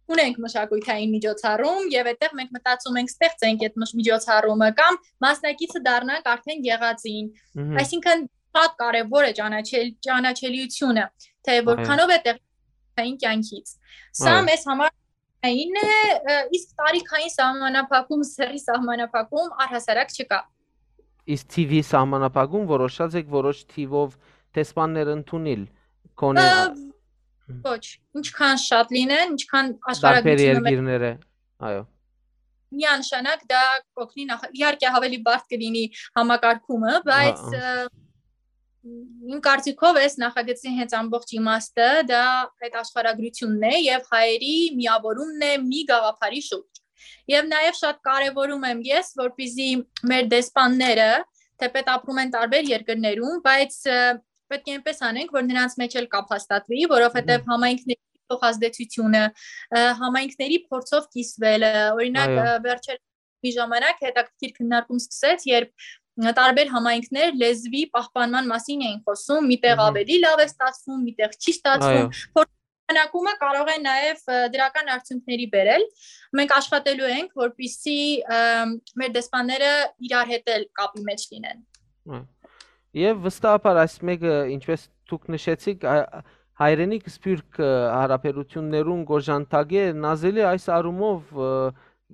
ունենք մշակութային միջոցառում և այդտեղ մենք մտածում ենք ստեղծենք այդ մշ-, միջոցառումը կամ մասնակիցը դառնանք արդեն եղածին։ Մհմ։ Այսինքն շատ կարևոր է ճանաչել, ճանաչելիությունը, թե Այո։ Որքանով է տեղի կյանքից։ Սա Այո։ Մեզ համար այն է, ը, իսկ տարիքային սահմանափակում, սեռի սահմանափակում առհասարակ չկա։ Իսկ թիվի սահմանափակում որոշած եք որոշ թիվով դեսպաններ ընդունիլ, քոնե Ը, ոչ, ինչքան շատ լինեն, ինչքան Տարբեր աշխարհագրությունը մեր երկիրները, այո։ Միանշանակ դա կօգնի նախ-, իհարկե ավելի բարդ կլինի համակարգումը, բայց, Հա, հա։ ը, իմ կարծիքով էս նախագծի հենց ամբողջ իմաստը դա այդ աշխարհագրությունն է և հայերի միավորումն է մի գաղափարի շուրջ։ Եվ նաև շատ կարևորում եմ ես, որպեսզի մեր դեսպանները, թեպետ ապրում են տարբեր երկրներում, բայց, ը, պետք է այնպես անենք, որ նրանց մեջ էլ կապ հաստատվի, որովհետև Մհմ։ Համայնքների փոխազդեցությունը, ը, համայնքների փորձով կիսվելը, օրինակ, Այո։ Ը, վերջեր-, մի ժամանակ հետաքրքիր քննարկում սկսեց, երբ, ը, տարբեր համայնքներ լեզվի պահպանման մասին էին խոսում, միտեղ Մհմ։ Ավելի լավ է ստացվում, միտեղ չի ստացվում, Այո։ Փորձ-, քննարկումը կարող է նաև, ը, դրական արդյունքների բերել։ Մենք աշխատելու ենք, որպեսզի, ը, մեր դեսպանները իրար հետ էլ կապի մեջ լինեն։ Հա։ Եվ վստահաբար այս մեկը, ինչպես դուք նշեցիք, ա-, հայրենիք սփյուռք, ը, հարաբերություններուն կօժանդակէ, Նազելի, այս առումով, ը,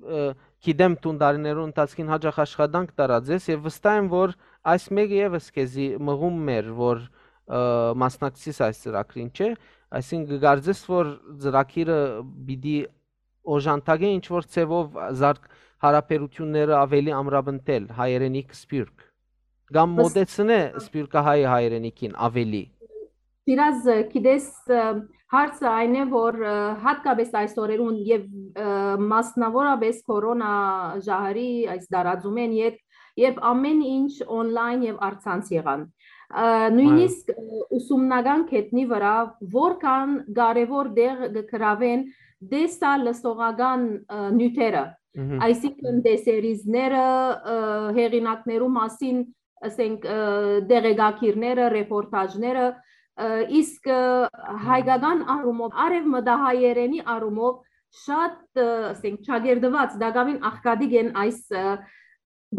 ը, գիտեմ դուն տարիներուն ընթացքին հաճախ աշխատանք տարած ես և վստահ եմ, որ այս մեկը ևս քեզի մղում մեր, որ, ը, մասնակցիս այս ծրագրին, չէ՞։ Այսինքն կկարծես, որ ծրագիրը պիտի օժանդակէ ինչ-որ ձևով զարգ-, հարաբերությունները ավելի ամրապնդել հայրենիք սփյուռք, կամ Բս- մոտեցնէ սփյուռքահայ հայրենիքին ավելի։ Շիրազ, գիտես, ը, հարցը այն է, որ, ը, հատկապես այս օրերուն և, ը, մասնավորապես կորոնա ժահրի այս դարածումէն յետ, երբ ամեն ինչ օնլայն և առցանց եղան, ը, նույնիսկ, ը, ուսումնական գետնի վրա որքան կարևոր տեղ կգրավեն տեսալսողական, ը, նյութերը, Մհմ։ Այսինքն տեսերիզները, ը, հեղինակներու մասին, ասենք, ը, տեղեկագիրները, ռեպորտաժները, ը, իսկ, ը, Մհմ։ Հայկական առումով, արևմտահայերենի առումով շատ, ը, ասենք, չակերտված, տակավին աղքատիկ են այս, ը,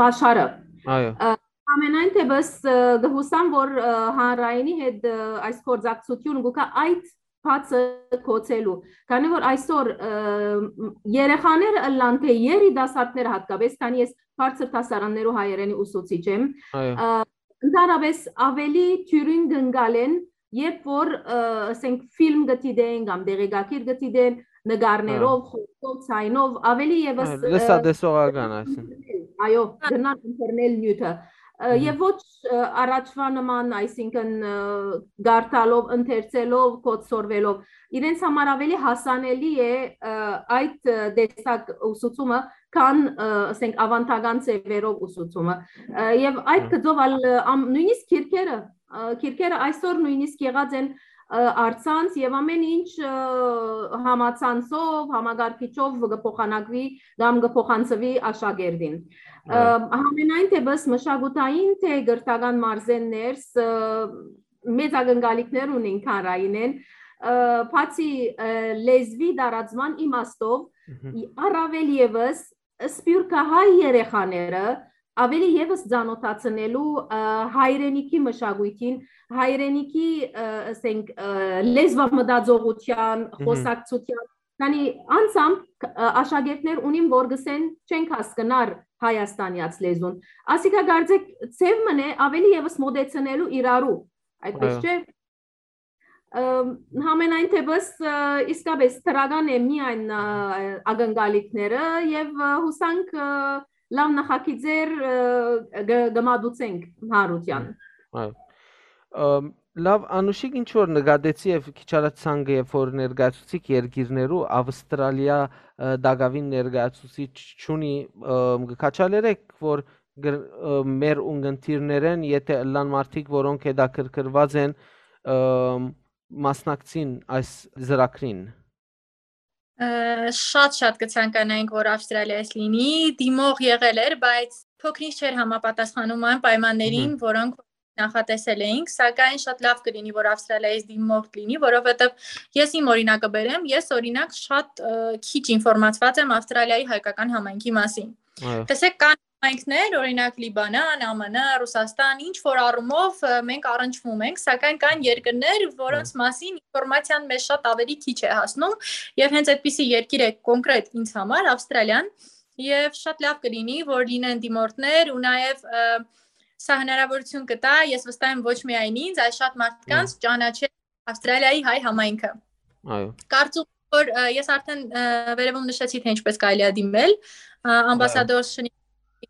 բաշխարը։ Այո։ Ը, ամենայն թեպս, ը, կհուսամ, որ, ը, հանրայինի հետ, ը, այս գործակցությունը գուկա այդ բացը կոչելու, քանի որ այսօր, ը, երեխաները ըլլան, թե երիտասարդները հատկապես, քանի ես բարձր դասարաններու հայերենի ուսուցիչ եմ, Այո։ ը, ընդհանրապես ավելի թիւրին կընկալեն երբ որ, ը, ասենք, ֆիլմ կը դիտեն կամ դեղեկագիր կը դիտեն, նկարներով, հա, խորքով, ցայնով, ավելի ևս, Այո, ը, լսատեսողական, այսինքն։ Այո, կրնան ընտրնել նիւթը։ Ը, Մհմ։ Եւ ոչ, ը, առաջվա նման, այսինքն, ը, գարտալով, ընթերցելով, կոչսորվելով։ Իրենց համար ավելի հասանելի է, ը, այդ, ը, տեսակ ուսուցումը, քան, ը, ասենք, ավանդական ձևերով ուսուցումը։ Ը, եւ այդ Հմ։ գծով ալ, ը, ամ-, նույնիսկ քիրքերը, ը, քիրքերը այսօր նույնիսկ եղած են, ը, առցանց, եւ ամեն ինչ, ը, համացանցով, համակարգիչով կը փոխանակուի կամ կը փոխանցուի աշակերտին։ Ը, Այո։ Համենայն դեպս, մշակութային թէ կրթական մարզէն ներս, ը, մեծ ակնկալիքներ ունին Քանրայինէն, ը, բացի, ը, լեզուի տարածման իմաստով, Մհմ։ ի-, առավել ևս սփիւռքահայ երեխաները ավելի ևս ծանօթացնելու, ը, հայրենիքի մշակոյթին, հայրենիքի, ը, ասենք, ը, լեզվամտածողութեան, Մհմ։ խոսակցութեան, քանի անձամբ, ը, աշակերտներ ունին, որ գսեն չենք հասկնար հայաստանեաց լեզուն։ Ասիկա կարծեք ձև մնե ավելի ևս մոտեցնելու իրարու, այդպես Այո։ չէ՞։ Ը, Համենայն դեպս, ը, իսկապես դրական է միայն, ը, ակնկալիքները եւ, ը, հուսանք, ը, լաւ նախագիծեր, ը, գ-, կմատուցենք հանրութեան։ Այո։ Ըմ, լաւ, Անուշիկ, ինչ որ նկատեցի եւ քիչ առաջ ցանկը, երբ որ ներկայացուցիկ երկիրներու, Ավստրալիա, ը, տակաւին ներկայացուցիչ չունի, ըմ, կը քաչալերեք, որ գր-, ը, մեր ունգընտիրներէն, եթէ ըլլան մարդիկ, որոնք հետաքրքրուած են, ըմ, մասնակցին այս ծրագրին։ Ը, շատ-շատ կը ցանկանայինք, որ Ավստրալիայից լինի, դիմող եղել էր, բայց փոքրինչ չէր համապատասխանում այն պայմաններին, Մհմ։ որոնք նախատեսել էինք, սակայն շատ լաւ կլինի, որ Ավստրալիայից դիմող լինի, որովհետև ես իմ օրինակը բերեմ, ես, օրինակ, շատ, ը, քիչ ինֆորմացված եմ Ավստրալիայի հայկական համայնքի մասին։ Այո։ Տեսեք, կան համայնքներ, օրինակ, Լիբանան, Ա Մ Ն, Ռուսաստան, ինչ որ առումով, ը, մենք առնչվում ենք, սակայն կան երկրներ, որոնց Այո։ մասին ինֆորմացիան մեզ շատ ավելի քիչ է հասնում, եւ հենց այդպիսի երկիր է կոնկրետ ինձ համար, Ավստրալիան, եւ շատ լաւ կլինի, որ լինեն դիմորդներ ու նաեւ, ը, սա հնարավորություն կտա, ես վստահ եմ, ոչ միայն ինձ, այլ շատ մարդկանց Այո։ ճանաչել Ավստրալիայի հայ համայնքը։ Այո։ Կարծում եմ, որ, ը, ես արդեն, ը, վերևում նշեցի, թե ինչպես կարելի է դիմել, ը, Այո։ ամբասադոր Շնի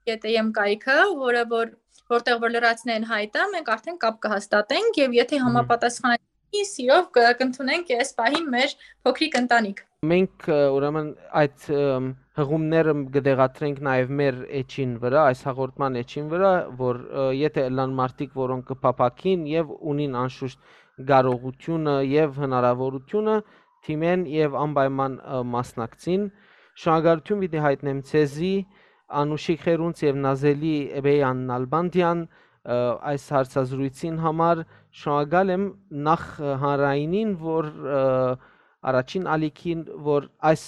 կետ էմ կայքը, որը որ, որտեղ որ լրացնեն հայտը, մենք արդեն կապ կհաստատենք, եւ եթե Մհմ։ համապատասխանի, սիրով կ-, կընդունենք այս պահին մեր փոքրիկ ընտանիք։ Մենք, ը, ուրեմն այդ, ըմ, հղումները կը տեղադրենք նաեւ մեր էջին վրայ, այս հաղորդման էջին վրայ, որ, ը, եթէ ըլլան մարդիկ, որոնք կը փափաքին եւ ունին անշուշտ կարողությունը եւ հնարավորությունը, դիմեն եւ անպայման, ը, մասնակցին։ Շնորհակալություն պիտի յայտնեմ ձեզի, Անուշիկ Խերունց եւ Նազելի Էբեյան Նալբանդյան, ը, այս հարցազրույցին համար։ Շնորհակալ եմ նախ, ը, հանրայինին, որ, ը, առաջին ալիքին, որ այս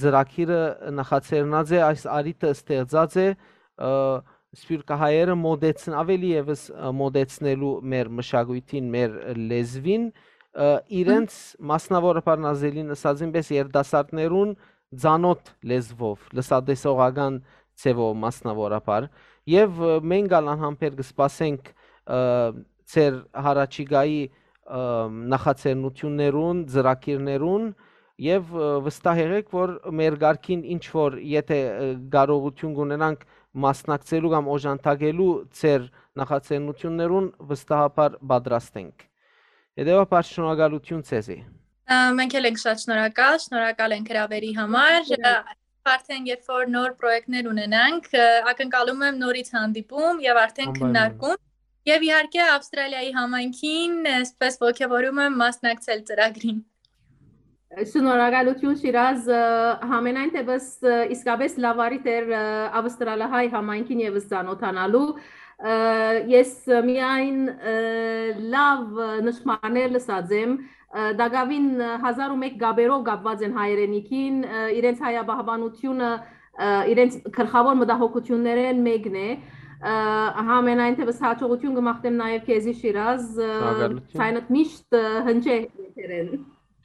ծրագիրը նախաձեռնած է, այս առիթը ստեղծած է, ը, սփիւռքահայերը մոտեցն-, ավելի ևս, ը, մոտեցնելու մեր մշակոյթին, մեր լեզուին, ը, իրենց, մասնավորաբար Նազելին ըսածին պես, երիտասարդներուն ծանօթ լեզվով, լսատեսողական ձևով մասնավորաբար։ Եվ, ը, մենք ալ անհամբեր կը սպասենք, ը, ձեր յառաջիկայի, ը, նախաձեռնություններուն, ծրագիրներուն, եւ, ը, վստահ եղեք, որ մեր կարգին ինչ որ, եթէ, ը, կարողություն կունենանք մասնակցելու կամ օժանդակելու ձեր նախաձեռնություններուն, վստահաբար պատրաստ ենք։ Հետեւաբար շնորհակալություն ձեզի։ Ա, մենք էլ ենք շատ շնորհակալ, շնորհակալ ենք հրավերի համար։ Ա, արդեն երբ որ նոր պրոյեկտներ ունենանք, ա, ակնկալում եմ նորից հանդիպում եւ արդեն Անպայման։ քննարկում։ Եվ իհարկե Ավստրալիայի համայնքին, այսպես ոգևորում եմ մասնակցել ծրագրին։ Շնորհակալություն, Շիրազ, ա, համենայն դեպս, ա, իսկապես լավ առիթ էր, ա, ավստրալահայ համայնքին ևս ծանոթանալու։ Ա, ես միայն, ա, լավ, ա, նշմաներ լսած եմ, ա, տակաւին, ա, հազար ու մէկ կապերով կապված են հայրենիքին, ա, իրենց հայապահպանությունը, ա, իրենց գլխաւոր մտահոգություններէն մեկն է։ Ա, համենայն դեպս հաջողություն կմաղթեմ նաեւ քեզի, Շիրազ, ա, Շնորհակալություն։ Ցայնդ միշտ, ա, հնչե եթերեն։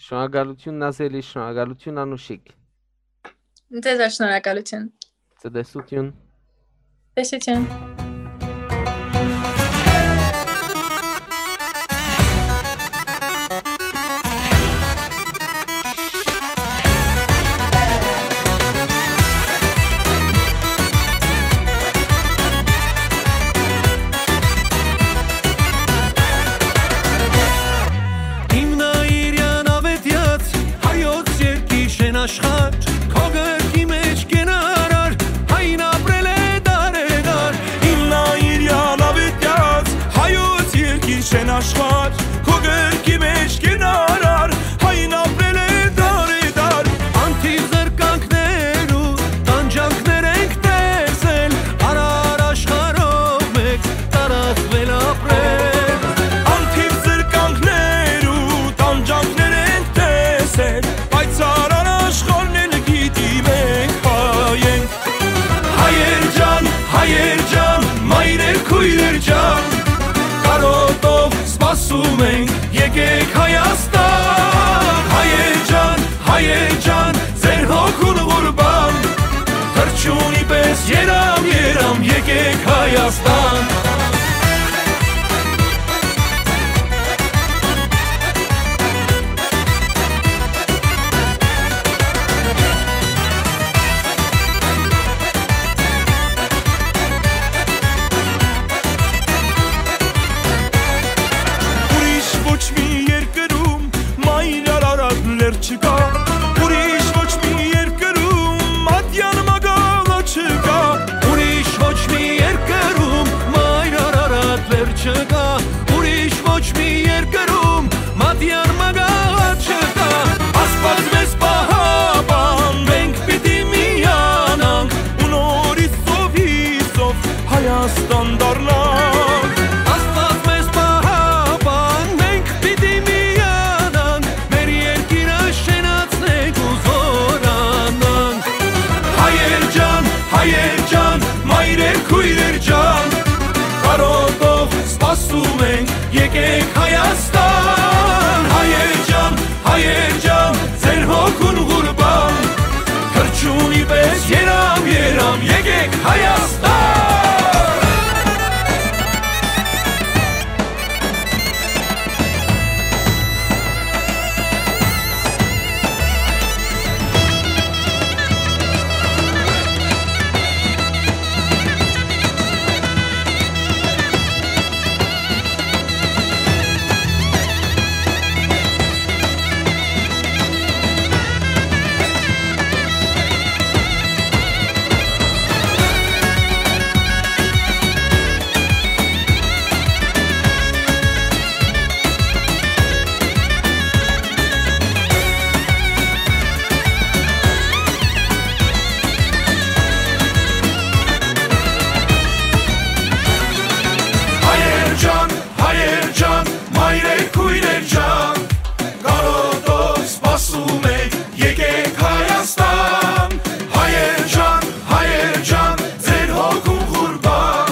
Շնորհակալություն, Նազելի, շնորհակալություն, Անուշիկ։ Ձեզ ալ շնորհակալություն։ Ցտեսություն։ Տեսություն։ Աշխարհ, քո կրկի մէջ կենարար, հայն ապրել է դարեդար։ Իմ նայիր յալավետյաց, հայոց երկիր շեն աշխարհ, քո կրկի մէջ կենարար, հայն ապրել է դարեդար։ Անթիվ զրկանքներու տանջանքներ ենք տեսել, արար աշխարհով մեկ տարածվել ապրել։ Անթիվ զրկանքներու տանջանքներ ենք տեսել, բայց արար աշխարհն էլ գիտի մենք հայ ենք։ Հայեր ջան, հայեր ջան, մայրեր, քոյրեր ջան, կարոտով սպասում ենք, եկեք Հայաստան։ Հայեր ջան, հայեր ջան, ձեր հոգուն ղուրբան, թռչունի պես երամ, երամ, եկեք Հայաստան։ Ուրիշ ոչ մի երկրում մայր արարատ լեռ չկա, ուրիշ ոչ մի երկրում ատյան մագաղը չկա, ուրիշ ոչ մի երկրում մայր արարատ լեռ չկա, ուրիշ ոչ մի երկրում մատյան մագաղը չկա։ Աստված մեզ պահապան, մենք պիտի միանանք ու նորից ծովի ծով Հայաստան դառնանք։ Աստված մեզ պահապան, մենք պիտի միանանք, մեր երկիրը շենացնենք ու զօրանանք։ Հայեր ջան, հայեր ջան, մայրեր, քոյրեր ջան, կարոտով սպասում ենք, եկեք Հայաստան։ Հայեր ջան, հայեր ջան, ձեր հոգուն ղուրբան, թռչունի պես երամ, երամ, եկեք Հայաստան։ Հայեր ջան, հայեր ջան, մայրեր, քոյրեր ջան, կարոտով սպասում ենք, եկեք Հայաստան։ Հայեր ջան, հայեր ջան, ձեր հոգուն ղուրբան,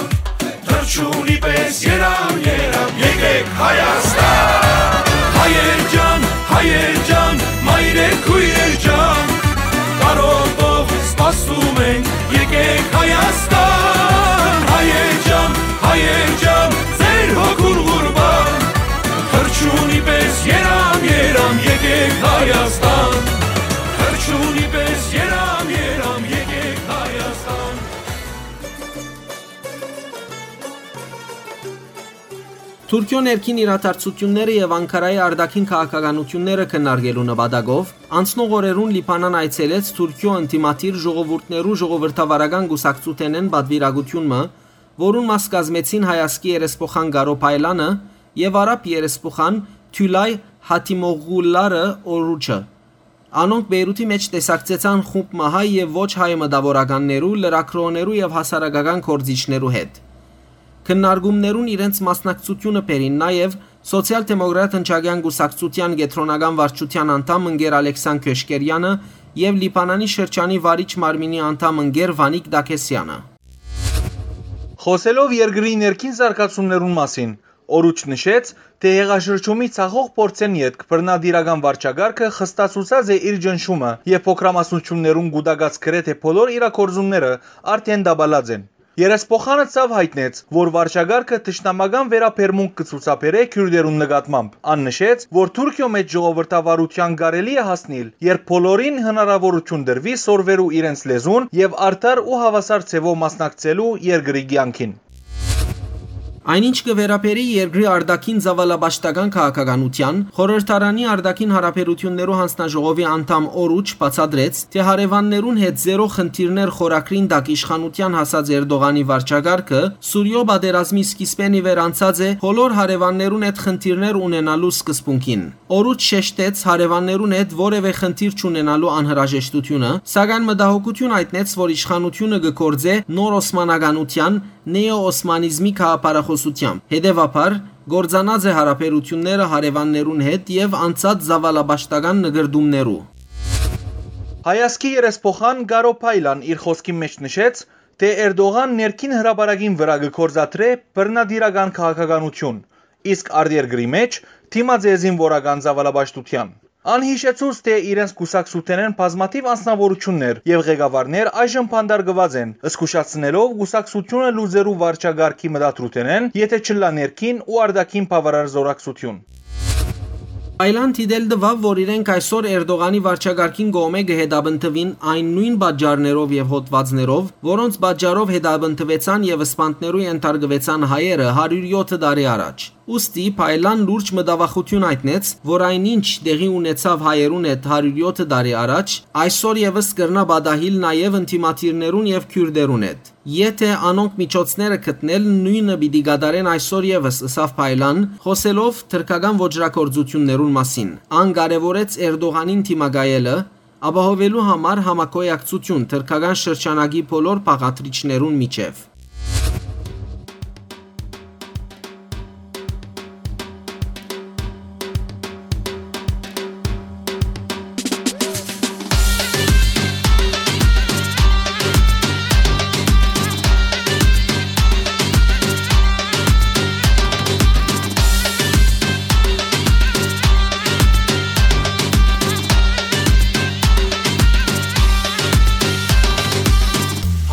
թռչունի պես երամ, երամ, եկեք Հայաստան։ Հայեր ջան, հայեր ջան, մայրեր, քոյրեր ջան, կարոտով սպասում ենք, եկեք Հայաստան։ Հայեր ջան, հայեր ջան, ձեր հոգուն ղուրբան, թռչունի պես երամ, երամ, եկեք Հայաստան։ Թռչունի պես երամ, երամ, եկեք Հայաստան։ Թուրքիոյ ներքին իրադարձութիւնները եւ Անկարայի արտաքին քաղաքականութիւնները քննարկելու նպատակով անցնող օրերուն Լիբանան այցելեց Թուրքիոյ ընդդիմադիր ժողովուրդներու ժողովրդավարական կուսակցութենէն պատուիրակութիւն մը, որուն մաս կազմեցին հայազգի երեսփոխան Կարո Փայլանը եւ արաբ երեսփոխան Թիլայ Հաթիմօղլու Օրուչը։ Անոնք Բեյրութի մէջ տեսակցեցան խումբ մը հայ եւ ոչ հայ մտաւորականներու, լրագրողներու եւ հասարակական գործիչներու հետ։ Քննարկումներուն իրենց մասնակցութիւնը բերին նաեւ Սոցիալ-դեմոկրատ ընչակեան կուսակցութեան կեդրոնական վարչութեան անդամ ընկեր Ալեքսան Քյոշկերյանը եւ Լիբանանի շրջանի վարիչ մարմինի անդամ ընկեր Վանիկ Դաքեսյանը։ Խօսելով երկրի ներքին զարգացումներուն մասին, Օրուչ նշեց, թէ յեղաշրջումի ցախող փորձէն ետք բռնատիրական վարչակարգը խստացուցած է իր ճնշումը եւ փոքրամասնություններուն կուտակած գրեթէ բոլոր իրագործումները արդէն տապալած են։ Երեսփոխանը ցաւ յայտնեց, որ վարչակարգը թշնամական վերաբերմունք կը ցուցաբերէ քիւրտերուն նկատմամբ։ Ան նշեց, որ Թուրքիոյ մէջ ժողովրդավարութեան կարելի է հասնիլ, երբ բոլորին հնարաւորութիւն տրուի սորվելու իրենց լեզուն եւ արդար ու հաւասար ձեւով մասնակցելու երկրի կեանքին։ Այն ինչ կը վերաբերի երկրի արտաքին ծաւալապաշտական քաղաքականութեան, խորհրդարանի արտաքին հարաբերութիւններու յանձնաժողովի անդամ Օրուչ բացատրեց, թէ հարեւաններուն հետ զերո խնդիրներ խորագրին տակ իշխանութեան հասած Էրտողանի վարչակարգը Սուրիոյ պատերազմի սկիզբէն ի վեր անցած է բոլոր հարեւաններուն հետ խնդիրներ ունենալու սկզբունքին։ Օրուչ շեշտեց հարեւաններուն հետ որեւէ խնդիր չունենալու անհրաժեշտութիւնը, սակայն մտահոգութիւն յայտնեց, որ իշխանութիւնը կը գործէ նոր օսմանականութեան, նեոօսմանիզմի գաղափարախօսութեամբ։ Հետեւաբար, կործանած է հարաբերութիւնները հարեւաններուն հետ եւ անցած ծաւալապաշտական նկրտումներու։ Հայազգի երեսփոխան Կարո Փայլան իր խօսքին մէջ նշեց, թէ Էրտողան ներքին հրապարակին վրայ կը գործադրէ բռնատիրական քաղաքականութիւն, իսկ արտերկրի մէջ դիմած է զինուորական ծաւալապաշտութեան։ Ան յիշեցուց, թէ իրենց կուսակցութենէն բազմաթիւ անձնաւորութիւններ եւ ղեկավարներ այժմ բանտարկուած են, զգուշացնելով կուսակցութիւնը լուծելու վարչակարգի մտադրութենէն, եթէ չըլլայ ներքին ու արտաքին բաւարար զօրակցութիւն։ Փայլան դիտել տուաւ, որ իրենք այսօր Էրտողանի վարչակարգին կողմէ կը հետապնդուին այն նոյն պատճառներով եւ հոդվածներով, որոնց պատճառով հետապնդուեցան եւ սպանդներու ենթարկուեցան հայերը հարիւր եօթը տարի առաջ։ Ուստի Փայլան լուրջ մտավախութիւն յայտնեց, որ այն ինչ տեղի ունեցաւ հայերուն հետ հարիւր եօթը տարի առաջ, այսօր եւս կրնայ պատահիլ նաեւ ընդդիմադիրներուն եւ քիւրտերուն հետ, եթէ անոնք միջոցները գտնեն, նոյնը պիտի կատարեն այսօր եւս, ըսաւ Փայլան, խօսելով թրքական ոճրագործութիւններուն մասին։ Ան կարեւորեց Էրտողանին դիմակայելը, ապահովելու համար համագոյակցութիւն թրքական շրջանակի բոլոր բաղադրիչներուն միջեւ։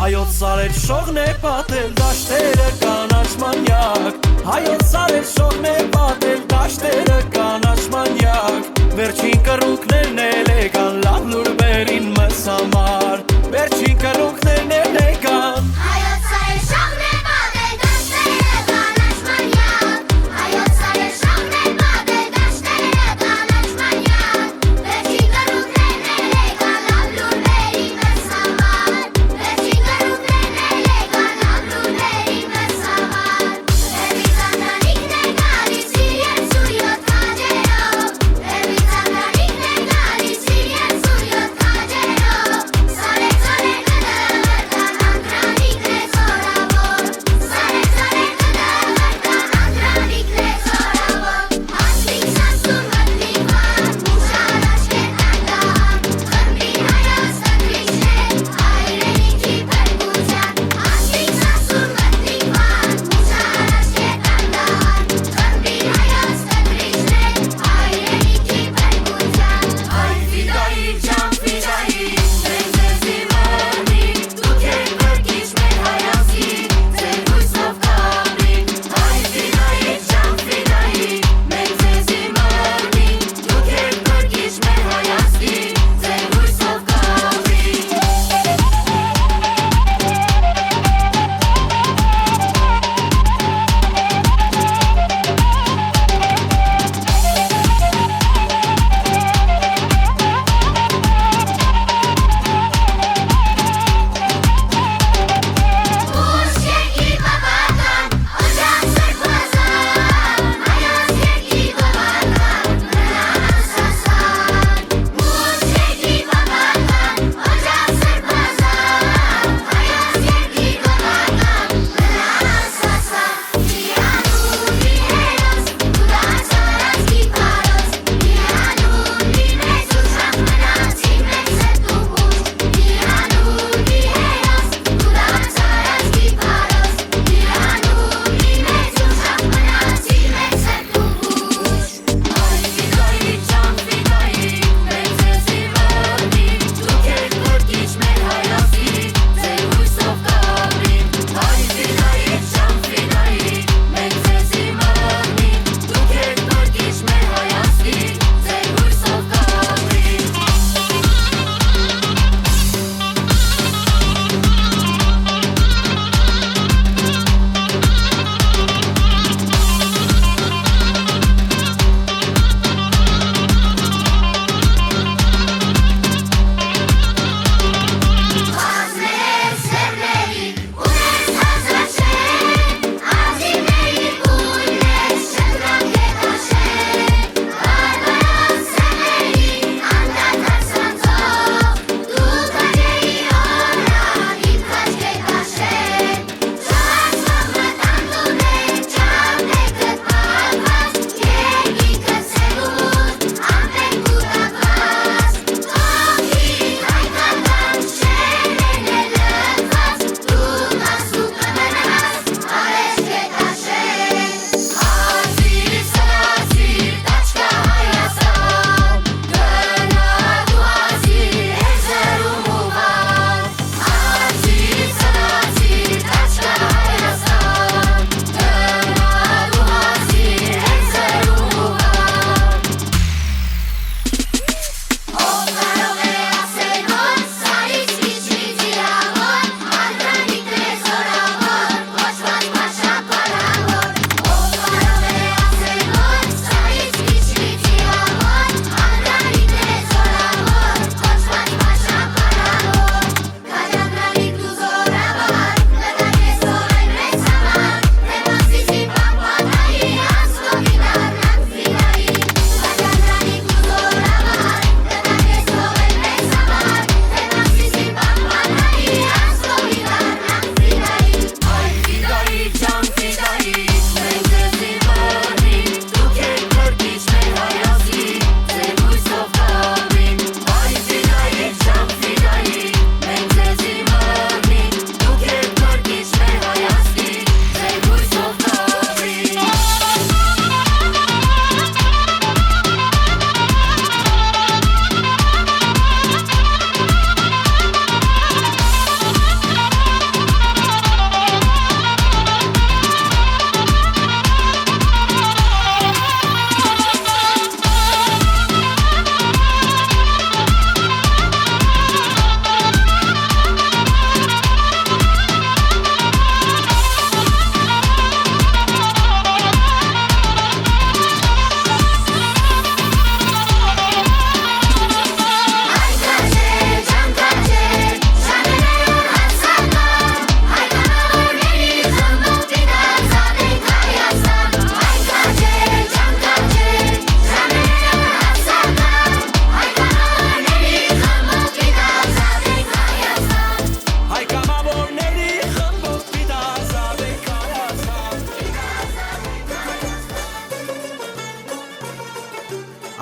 Հայոց սարեր շողն է պատել դաշտերը կանաչ մանյակ, հայոց սարեր շողն է պատել դաշտերը կանաչ մանյակ, վերջին կռունկներն էլ եկան լաւ լուրբերին մեզ համար, վերջին կռունկներն էլ եկան։ Հայոց սարեր շողն է պատել դաշտերը կանաչ մանյակ, հայոց սարեր շողն է պատել դաշտերը կանաչ մանյակ, վերջին կռունկներն էլ եկան լաւ լուրբերին մեզ համար, վերջին կռունկներն էլ եկան լաւ լուրբերին մեզ համար։ Հեռվից անդանիքն է գալիս իր երկսուն յոթ քաջերով, հեռվից անդանիքն է գալիս իր երկսուն յոթ քաջերով, սարեր ծորեր կը դղրդան, անդրանիքն է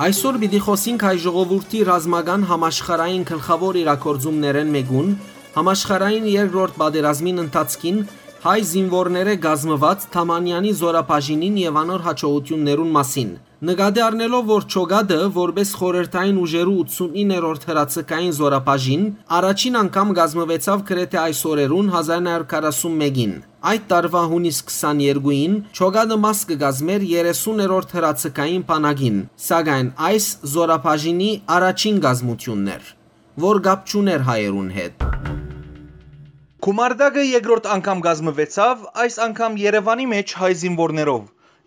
Այսօր պիտի խօսինք հայ ժողովուրդի ռազմական համաշխարհային գլխաւոր իրագործումներէն մէկուն, համաշխարհային երկրորդ պատերազմին ընթացքին հայ զինուորներէ կազմուած Թամանյանի զորաբաժինին եւ անոր յաջողութիւններուն մասին։ Նկատի առնելով, որ Չոգատը, որպէս խորհրդային ուժերու ութսունիններորդ հրաձգային զորաբաժին, առաջին անգամ կազմուեցաւ գրեթէ այս օրերուն, հազար ինը հարիւր քառասուն մէկին։ Այդ տարուայ յունիս քսաներկուին Չոգատը մաս կը կազմէր երեսուններորդ հրաձգային բանակին, սակայն այս զորաբաժինի առաջին կազմութիւնն էր, որ կապ չունէր հայերուն հետ։ Քումարտակը երկրորդ անգամ կազմուեցաւ, այս անգամ Երեւանի մէջ հայ զինուորներով,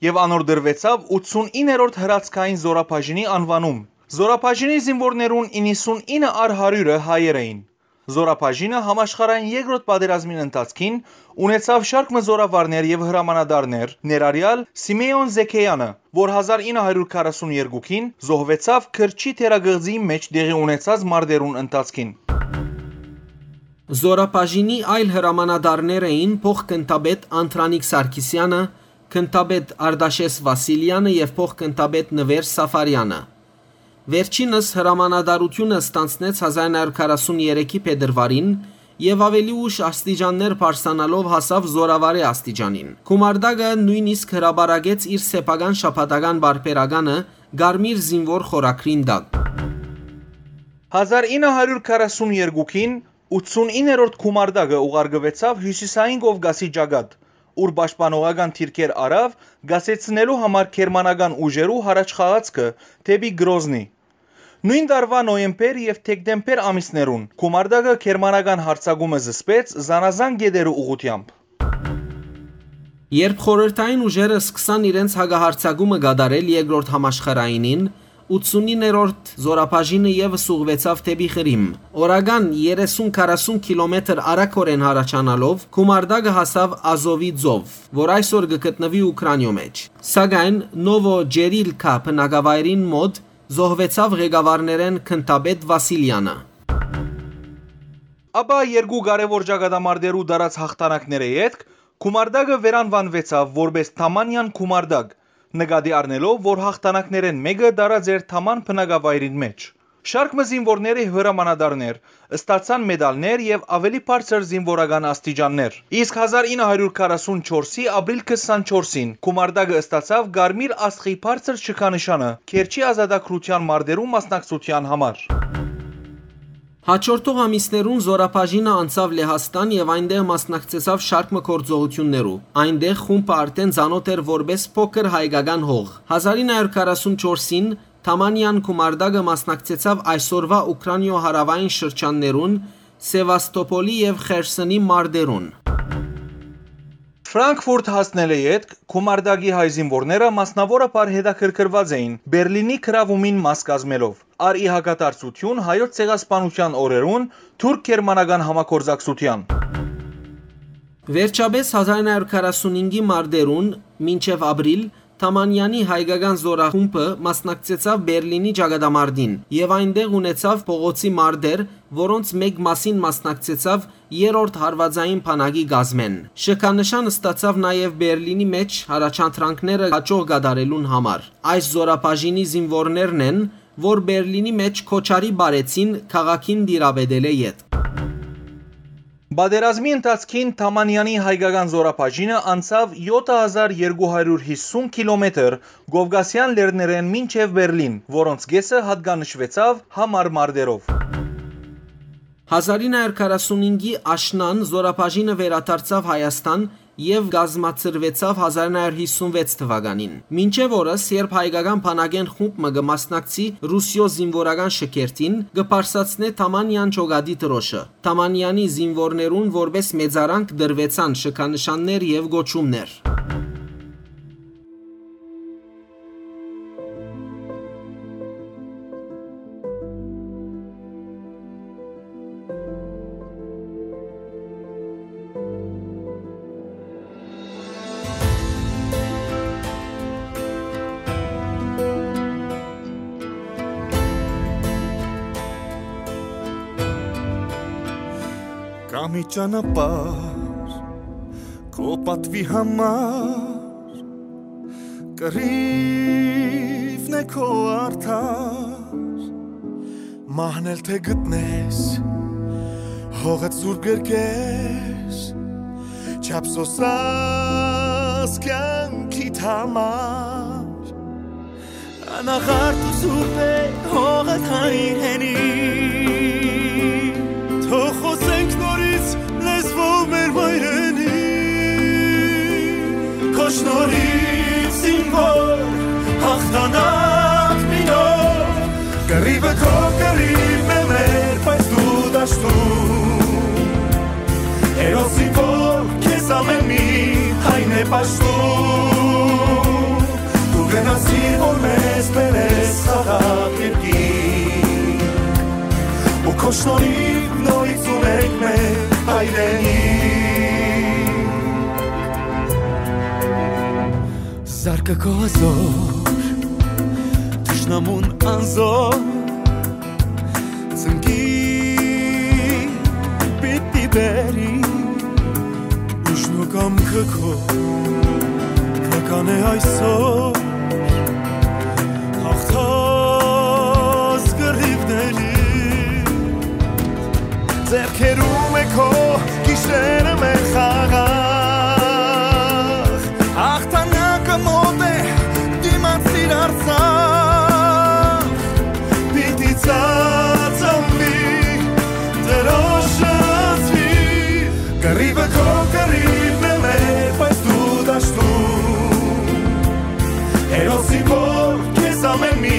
եւ անոր տրուեցաւ ութսունիններորդ հրաձգային զորաբաժինի անուանում։ Զորաբաժինի զինուորներուն իննսունինը առ հարիւրը հայեր էին։ Զորաբաժինը համաշխարհային երկրորդ պատերազմին ընթացքին ունեցաւ շարք մը զորավարներ եւ հրամանատարներ, ներառեալ Սիմէոն Զեքեանը, որ հազար ինը հարիւր քառասուն երկուին զոհուեցաւ Քրչի թերակղզիի մէջ տեղի ունեցած մարտերուն ընթացքին։ Զորաբաժինի այլ հրամանատարներ էին փոխ-գնդապետ Անդրանիկ Սարգսեանը, գնդապետ Արտաշէս Վասիլեանը եւ փոխ-գնդապետ Նուեր Սաֆարեանը։ Վերջինս հրամանատարութիւնը ստանձնեց հազար ինը հարիւր քառասուն երեքի փետրուարին եւ աւելի ուշ աստիճաններ բարձրանալով հասաւ զորավարի աստիճանին։ Քումարտակը նոյնիսկ հրապարակեց իր սեփական շաբաթական պարբերականը Կարմիր զինուոր խորագրին տակ։ Հազար ինը հարիւր քառասուն երկուին ութսունիններորդ Քումարտակը ուղարկուեցաւ Հիւսիսային Կովկասի ճակատ, ուր պաշտպանողական դիրքեր առաւ կասեցնելու համար գերմանական ուժերու յառաջխաղացքը դէպի Գրոզնի։ Նոյն տարուայ նոյեմբեր եւ դեկտեմբեր ամիսներուն Քումարտակը գերմանական յարձակումը զսպեց զանազան կետերու ուղղութեամբ։ Երբ խորհրդային ուժերը սկսան իրենց հակահարձակումը կատարել երկրորդ համաշխարհայինին, ութսունիններորդ զորաբաժինը եւս ուղղուեցաւ դէպի Ղրիմ։ Օրական երեսուն քառասուն կիլոմետր արագօրէն յառաջանալով, Քումարտակը հասաւ Ազովի ծով, որ այսօր կը գտնուի Ուքրանիոյ մէջ։ Սակայն Նովո Ջերիլքա բնակավայրին մօտ զոհուեցաւ ղեկավարներէն գնդապետ Վասիլեանը։ Ապա երկու կարեւոր ճակատամարտերու տարած յաղթանակներէ ետք Քումարտակը վերանուանուեցաւ որպէս Թամանյան Քումարտակ, նկատի առնելով, որ յաղթանակներէն մէկը տարած էր Թաման բնակավայրին մէջ։ Շարք մը զինուորների հրամանատարներ ստացան մեդալներ եւ աւելի բարձր զինուորական աստիճաններ։ Իսկ հազար ինը հարիւր քառասուն չորսի ապրիլ քսանչորսին Քումարտակը ստացաւ Կարմիր Աստղի բարձր շքանշանը Քերչի ազատագրութեան մարտերու մասնակցութեան համար։ Հաջորդող ամիսներուն զորաբաժինը անցաւ Լեհաստան եւ այնտեղ մասնակցեցաւ շարք մը գործողութիւններու։ Այնտեղ խումբը արդէն ծանօթ էր որպէս փոքր հայկական հող։ Հազար ինը հարիւր քառասուն չորսին Թամանյան Քումարտակը մասնակցեցաւ այսօրուայ Ուքրանիոյ հարաւային շրջաններուն, Սևաստոպոլի եւ Խերսոնի մարտերուն։ Ֆրանկֆուրտ հասնելէ ետք Քումարտակի հայ զինուորները մասնաւորաբար հետաքրքրուած էին Բերլինի գրաւումին մաս կազմելով, առ ի հակադարձութիւն Հայոց ցեղասպանութեան օրերուն թուրք-գերմանական համագործակցութեան։ Վերջապէս հազար ինը հարիւր քառասունհինգի մարտերուն մինչեւ ապրիլ Թամանյանի հայկական զորախումբը մասնակցեցաւ Բերլինի ճակատամարտին եւ այնտեղ ունեցաւ փողոցի մարտեր, որոնց մէկ մասին մասնակցեցաւ երրորդ հարուածային բանակի կազմէն։ Շքանշան ստացաւ նաեւ Բերլինի մէջ յառաջադրանքները յաջող կատարելուն համար։ Այս զորաբաժինի զինուորներն են, որ Բերլինի մէջ քոչարի պարեցին քաղաքին տիրապետելէ ետք։ Պատերազմի ընթացքին Թամանյանի հայկական զորաբաժինը անցաւ յոթ հազար երկու հարիւր հիսուն կիլոմետր Կովկասեան լեռներէն մինչեւ Բերլին, որոնց կէսը յատկանշուեցաւ համառ մարտերով։ Հազար ինը հարիւր քառասունհինգի աշնան զորաբաժինը վերադարձաւ Հայաստան եւ կազմակերպուեցաւ հազար ինը հարիւր հիսուն վեց թուականին։ Մինչեւ օրս, երբ հայկական բանակէն խումբ մը կը մասնակցի Ռուսիոյ զինուորական շքերթին, կը բարձրացնէ Թամանյան Չոգատի դրօշը։ Թամանյանի զինուորներուն որպէս մեծարանք տրուեցան շքանշաններ եւ կոչումներ։ Կա մի ճանապարհ քո պատվի համար, կռիվ Նե քո արդար, մահն էլ թէ գտնես, հողդ սուրբ կերկես, չափսոսած կեանքիդ համար։ Անաղարտ ու սուրբ է հողդ հայրենի, թող խօսենք նորից լեզվով մեր մայրենի։ Քո շնորհիվ զինվոր հաղթանակ մինոր, կռիվը քո կռիվն է մեր, բայց դու դաշտում։ Հերոսին որ քեզ ամէն մի հայն է պաշտում, դու գնացիր որ մեզ բերես խաղաղ երկիր, ու քո շնորհիվ նորից ունենք մեր հայրենիք։ Զարկը քո հզոր, թշնամուն անզոր, ծնկի պիտի բերի, ուժն ու կամքը քո, քրական է այսօր, հաղթած կռիվների։ Ձեռքերում է քո գիշերը մեր խաղաղ, հաղթանակը մոտ է, դիմացիր Արցախ, պիտի ծածանվի, Տիրոջ շնորհիվ։ Կռիվը քո կռիվն է մեր, բայց դու դաշտում, հերոսի որ քեզ ամէն մի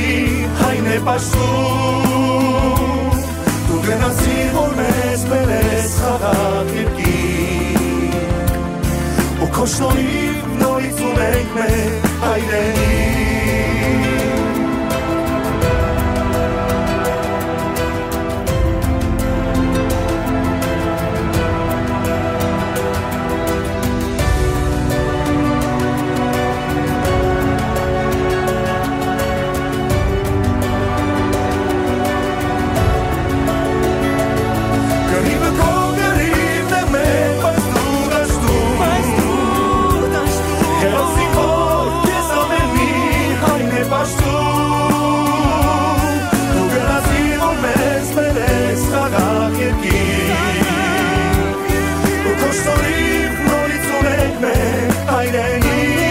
հայն է պաշտում, դու գնացիր որ մեզ բերես խաղաղ երկիր, ու քո շնորհիվ նորից ունենք մեր հայրենիք։ Կռիվը քո կռիվն է մեր, բայց դու դաշտում, հերոսի որ քեզ ամէն մի հայն է պաշտում, դու գնացիր որ մեզ բերես խաղաղ երկիր, ու քո շնորհիվ նորից ունենք մեր հայրենիք։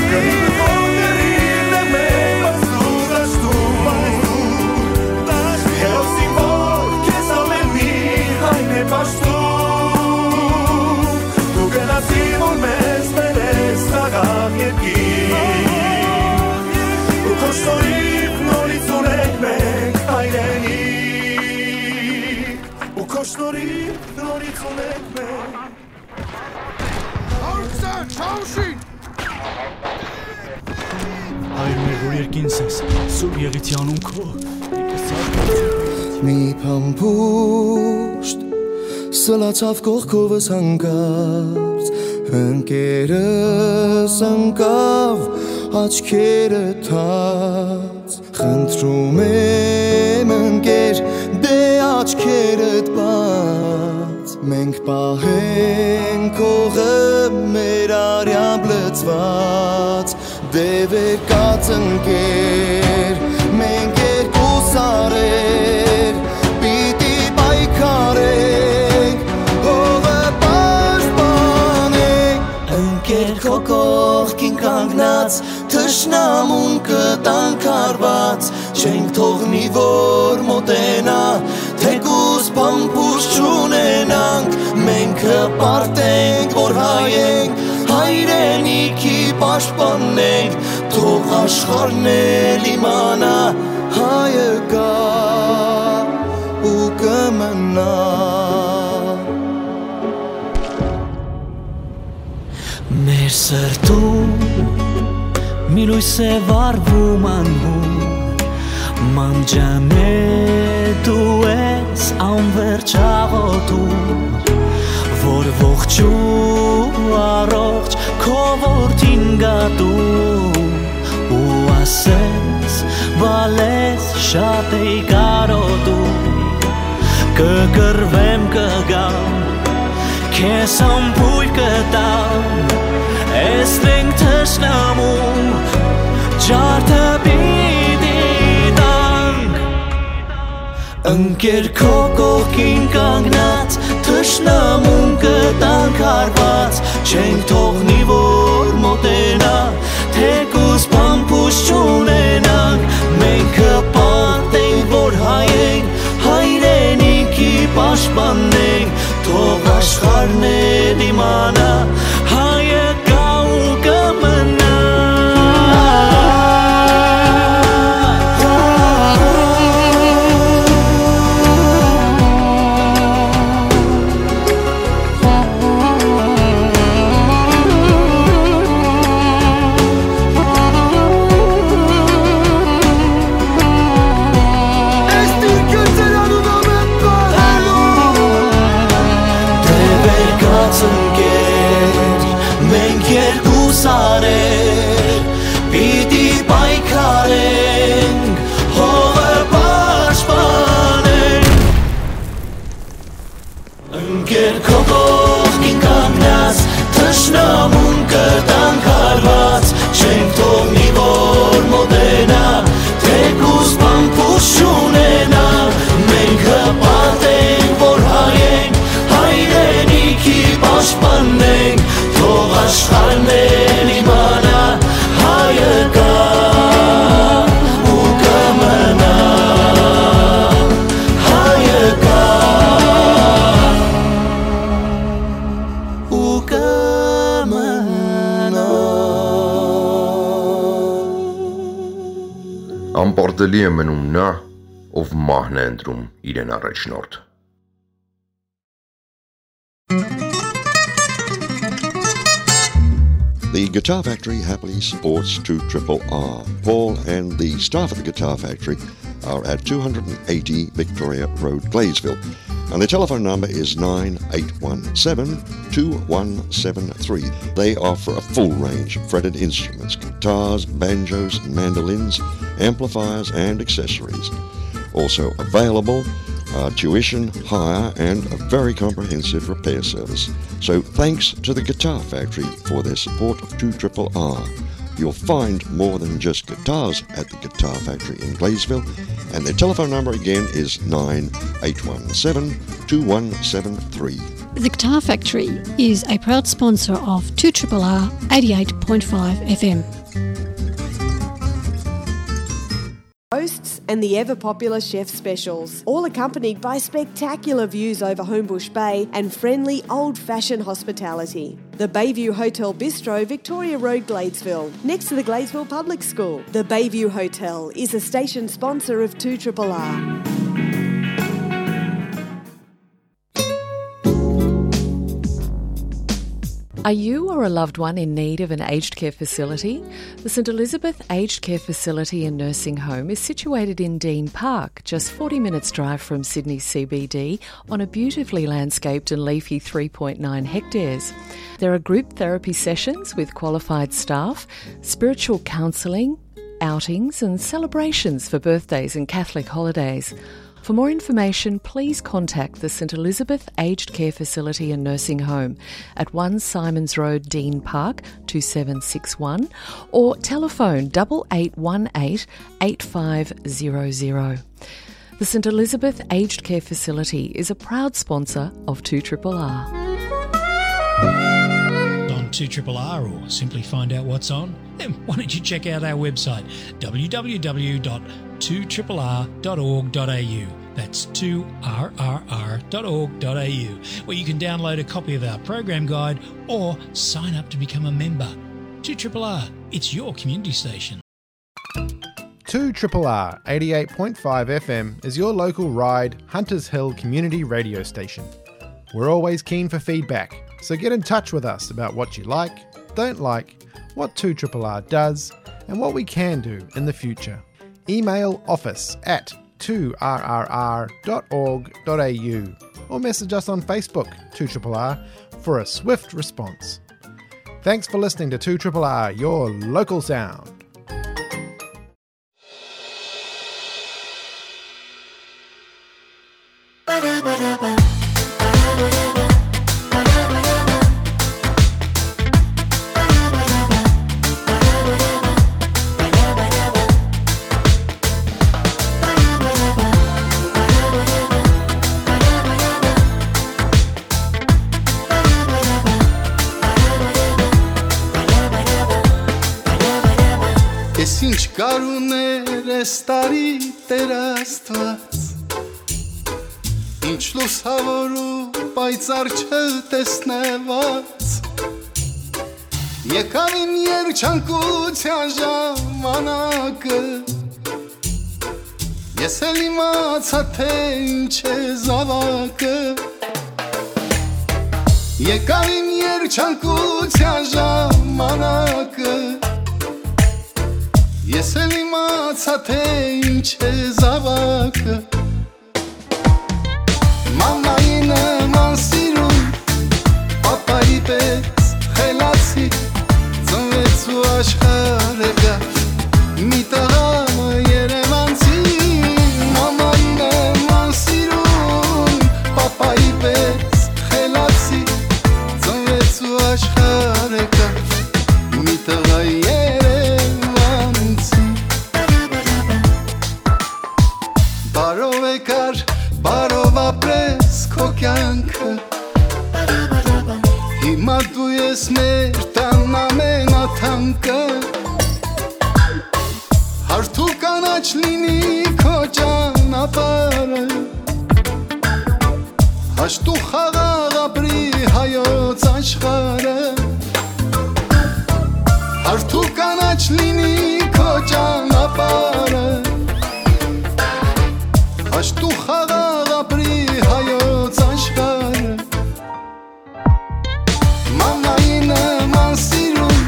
Կռիվը քո կռիվն է մեր, բայց դու դաշտում, հերոսի որ քեզ ամէն մի հայն է պաշտում, դու գնացիր որ մեզ բերես խաղաղ երկիր, ու քո շնորհիվ նորից ունենք մենք հայրենիք, ու քո շնորհիվ նորից ունենք մենք։ Հայր մեր, որ երկինս ես, սուրբ եղիցի անուն քո։ Մի փամփուշտ սլացաւ կողքովս հանկարծ, ընկերս ընկավ աչքերը թած։ Խնդրում եմ, ընկեր, դե աչքերդ բաց, մենք պահենք հողը մեր արեամբ լցված, դե վեր կաց, ընկեր, մենք երկու սարեր պիտի պայքարենք, հողը պաշտպանենք, ընկեր, քո կողքին կանգնած, թշնամուն կտանք հարված, չենք թողնի որ մոտենայ, թեկուզ փամփուշտ չունենանք, մենք կպարտենք որ հայ ենք, հայրենիքի պաշտպանենք, թող աշխարհն էլ իմանայ, հայը կայ ու կմնայ։ Մեր սրտում մի լոյս է վառվում անհուն, մամջանե դու ես անվերջ աղոթում, որ ողջ ու առողջ քո որդին գատում, ու ասես, բալես շատ էի կարոտում, կկռվեմ, կգամ, քեզ համբույր կտամ, էս մենք թշնամու Ջարդը պիտի տանք, ընկեր քո կողքին կանգնած, թշնամուն կը տանք հարված, չենք թողնի որ մոտենա, թեկուզ բամբուս չունենանք, մենք կը պարտենք որ հայ ենք, հայրենիքի պաշտպանենք, թող աշխարհն է դիմանա, հայը կա ու կը մնա։ Դեւեր կացնկեր, մենք երկու սարեր, պիտի պայքարենք, հողը պաշտպանենք։ Ընկեր քո կողքին կանգնած, թշնամուն կտանք հարված, չենք թողնի որ մոտենա, թեկուզ բամբուս չունենա, մենք հպարտ ենք որ հայ ենք, հայրենիքի պաշտպանենք, թող աշխարհն էլ իմանա, հայը կա ու կը մնա, հայը կա ու կը մնա։ Անպարտելի է մնում նա, ով մահն է ընտրում իրեն առաջնորդ։ The Guitar Factory happily supports two triple R. Paul and the staff at the Guitar Factory are at two hundred and eighty Victoria Road, Gladesville. And the telephone number is nine eight one seven, two one seven three. They offer a full range of fretted instruments, guitars, banjos, mandolins, amplifiers, and accessories. Also available are tuition, hire, and a very comprehensive repair service. So thanks to the Guitar Factory for their support of two triple R. You'll find more than just guitars at the Guitar Factory in Gladesville, and their telephone number again is nine eight one seven, two one seven three. The Guitar Factory is a proud sponsor of two triple R eighty-eight point five F M. Roasts and the ever popular chef specials, all accompanied by spectacular views over Homebush Bay and friendly old-fashioned hospitality. The Bayview Hotel Bistro, Victoria Road, Gladesville, next to the Gladesville Public School. The Bayview Hotel is a station sponsor of two triple R. Are you or a loved one in need of an aged care facility? The St Elizabeth Aged Care Facility and Nursing Home is situated in Dean Park, just forty minutes' drive from Sydney C B D, on a beautifully landscaped and leafy three point nine hectares. There are group therapy sessions with qualified staff, spiritual counselling, outings and celebrations for birthdays and Catholic holidays. For more information, please contact the St Elizabeth Aged Care Facility and Nursing Home at one Simons Road, Dean Park, two seven six one, or telephone double eight one eight, eight five zero zero. The St Elizabeth Aged Care Facility is a proud sponsor of two triple R. On two triple R, or simply find out what's on, then why don't you check out our website, w w w dot two triple r dot org dot a u. That's two r r r dot org dot a u, where you can download a copy of our program guide or sign up to become a member. two triple R, it's your community station. two triple R eighty-eight point five F M is your local Ryde Hunters Hill community radio station. We're always keen for feedback, so get in touch with us about what you like, don't like, what two triple R does, and what we can do in the future. Email office at two r r r dot org dot a u or message us on Facebook, two triple R, for a swift response. Thanks for listening to two triple R, your local sound. Կ'արուներ այս տարի Տէր Աստուած, ինչ լուսաւոր ու պայծառ չտեսնուած։ Եկաւ իմ երջանկութեան ժամանակը, ես էլ իմացայ, թէ ինչ է զաւակը։ Եկաւ իմ երջանկութեան ժամանակը, ես էլ իմացայ, թէ ինչ է զաւակը։ Մամայի նման սիրուն, պապայի պէս խելացի, ծնվեց ու աշխարհը գա մի տղա երևանցի։ Մամայի նման սիրուն, պապայի պէս խելացի, ծնվեց ու աշխարհը գա մի տղա երևանցի։ Բարով եկար, բարով ապրես քո կեանքը։ Հիմա դու ես մեր տան ամենաթանկը։ Հարթ ու կանաչ լինի քո ճանապարհը, հաշտ ու խաղաղ ապրի հայոց աշխարհը։ Հարթ ու կանաչ լինի քո ճանապարհը, հաշտ ու խաղաղ ապրի հայոց աշխարհը։ Մամայի նման սիրուն,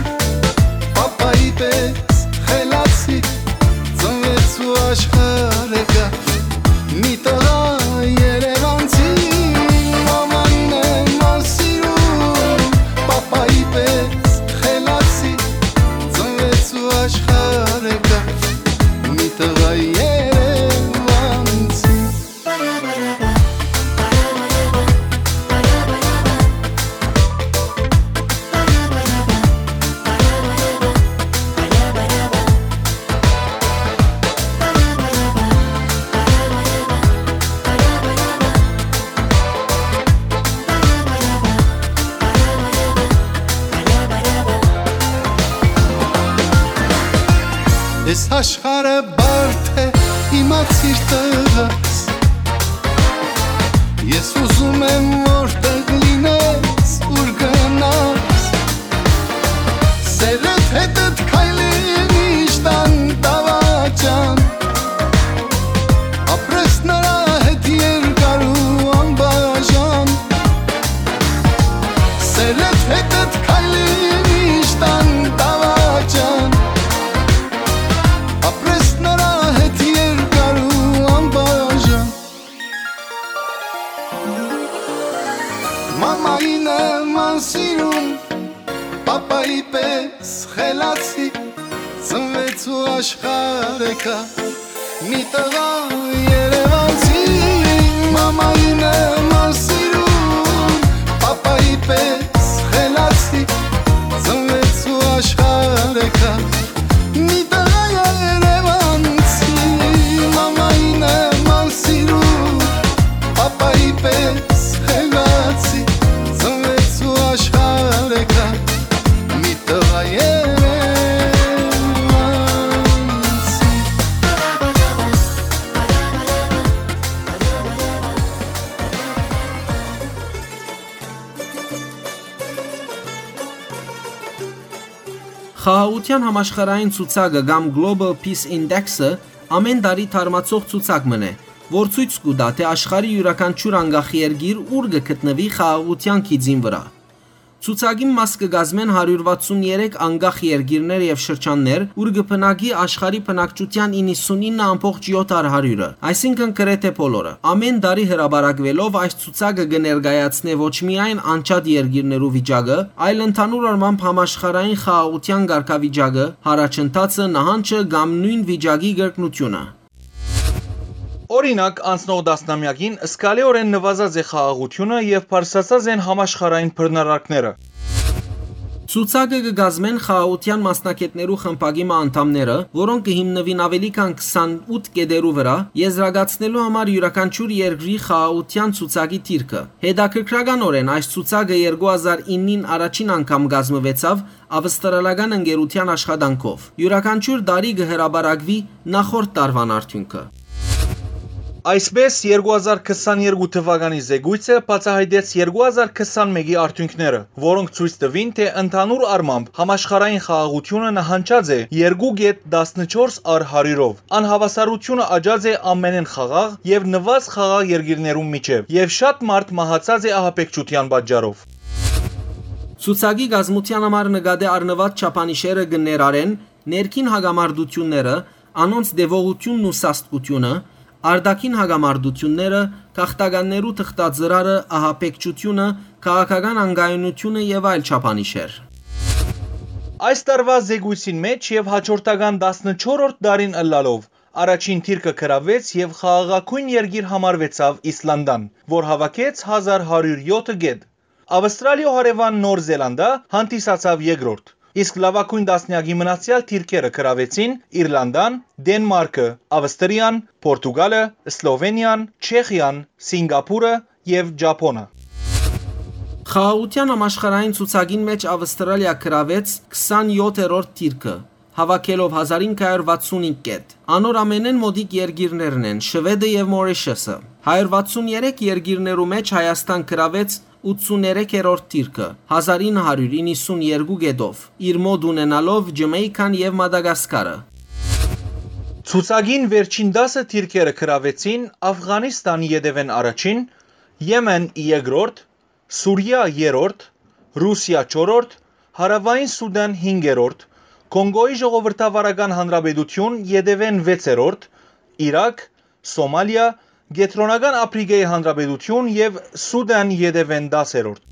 պապայի պէս խելացի, ծնվեց ու աշխարհը գա մի տղա երևանցի։ Մամայի նման սիրուն, պապայի պէս խելացի, ծնվեց ու աշխարհը գա մի տղա երևանցի։ Այս աշխարհը բարդ է, իմացիր, տղաս։ Ես ուզում եմ, որտեղ լինես, ուր գնաս, սերդ հետդ քայլի միշտ անտավաճան։ Ապրես նրա հետ երկար ու անբաժան, սերդ հետդ քայլի միշտ անտավաճան։ Ապրես նրա հետ երկար ու անբաժան։ Մամայի նման սիրուն, պապայի պէս խելացի, ծնվեց ու աշխարհը գա մի տղա երևանցի։ Մամայի նման սիրուն, պապայի պէս խելացի, ծնվեց ու աշխարհը գա մի տղա երևանցի։ Մամայի նման սիրուն, պապայի պէս խելացի, ծնվեց ու աշխարհը գա մի տղա երևանցի։ Խաղաղութեան համաշխարհային ցուցակը կամ Global Peace Index-ը ամէն տարի թարմացող ցուցակ մըն է, որ ցոյց կու տայ, թէ աշխարհի իւրաքանչիւր անկախ երկիր ուր կը գտնուի խաղաղութեան գիծին վրայ։ Ցուցակին մաս կը կազմեն հարիւր վաթսուն երեք անկախ երկիրներ եւ շրջաններ, ուր կը բնակի աշխարհի բնակչութեան իննսունինը ամբողջ յոթ հարիւրը, այսինքն՝ գրեթէ բոլորը։ Ամէն տարի հրապարակուելով՝ այս ցուցակը կը ներկայացնէ ոչ միայն անջատ երկիրներու վիճակը, այլ ընդհանուր առմամբ համաշխարհային խաղաղութեան կարգավիճակը, յառաջընթացը, նահանջը կամ նոյն վիճակի կրկնութիւնը։ Օրինակ, անցնող տասնամեակին զգալիօրէն նուազած է խաղաղութիւնը եւ բարձրացած են համաշխարհային բռնարարքները։ Ցուցակը կը կազմեն խաղաղութեան մասնագէտներու խմբակի մը անդամները, որոնք կը հիմնուին աւելի քան քսանութ կետերու վրայ, եզրակացնելու համար իւրաքանչիւր երկրի խաղաղութեան ցուցակի դիրքը։ Հետաքրքրականօրէն, այս ցուցակը երկու հազար իննին առաջին անգամ կազմուեցաւ Ավստրալական ընկերութեան աշխատանքով։ Իւրաքանչիւր տարի կը հրապարակուի նախորդ տարուան արդիւնքը։ Այսպէս, երկու հազար քսաներկու թվականի զեկոյցը բացայայտեց երկու հազար քսանմէկի արդիւնքները, որոնք ցոյց տուին, թէ ընդհանուր առմամբ համաշխարհային խաղաղութիւնը նահանջած է երկու կետ տասնչորս առ հարիւրով։ Անհաւասարութիւնը աճած է ամենէն խաղաղ եւ նուազ խաղաղ երկիրներուն միջեւ, եւ շատ մարդ մահացած է ահաբեկչութեան պատճառով։ Ցուցակի կազմութեան համար նկատի առնուած չափանիշերը կը ներառեն ներքին հակամարտութիւնները, անոնց տեւողութիւնն ու սաստկութիւնը, արտաքին հակամարտութիւնները, գաղթականներու թղթածրարը, ահաբեկչութիւնը, քաղաքական անկայունութիւնը եւ այլ չափանիշեր։ Այս տարուայ զեկոյցին մէջ եւ հաջորդական տասնչորրորդ տարին ըլլալով, առաջին դիրքը գրաւեց եւ խաղաղագոյն երկիր համարուեցաւ Իսլանդան, որ հաւաքեց հազար հարիւր եօթը կետ։ Ավստրալիոյ հարեւան Նոր Զելանդա հանդիսացաւ երկրորդ, իսկ լաւագոյն տասնեակի մնացեալ դիրքերը գրաւեցին Իրլանդան, Դենմարկը, Ավստրիան, Պորտուգալը, Սլովենիան, Չեխիան, Սինկապուրը եւ Ճափոնը։ Խաղաղութեան համաշխարհային ցուցակին մէջ Ավստրալիա գրաւեց քսանեօթերորդ դիրքը, հաւաքելով հազար ինը հարիւր վաթսուն հինգ կետ։ Անոր ամենէն մօտիկ երկիրներն են Շուեդը եւ Մորիշըսը։ Հարիւր վաթսուն երեք երկիրներու մէջ Հայաստան գրաւեց ութսուներեքերորդ դիրքը, հազար ինը հարիւր իննսուն երկու կետով, իր մօտ ունենալով Ջամայքան եւ Մադագասկարը։ Ցուցակին վերջին տասը դիրքերը գրաւեցին Աֆղանիստան ետեւէն առաջին, Եմեն երկրորդ, Սուրիա երրորդ, Ռուսիա չորրորդ, Հարաւային Սուդան հինգերորդ, Կոնկոյի Ժողովրդավարական Հանրապետութիւն ետեւէն վեցերորդ, Իրաք, Սոմալիա, Կեդրոնական Ափրիկայի Հանրապետութիւն եւ Սուդան ետեւէն տասերորդ։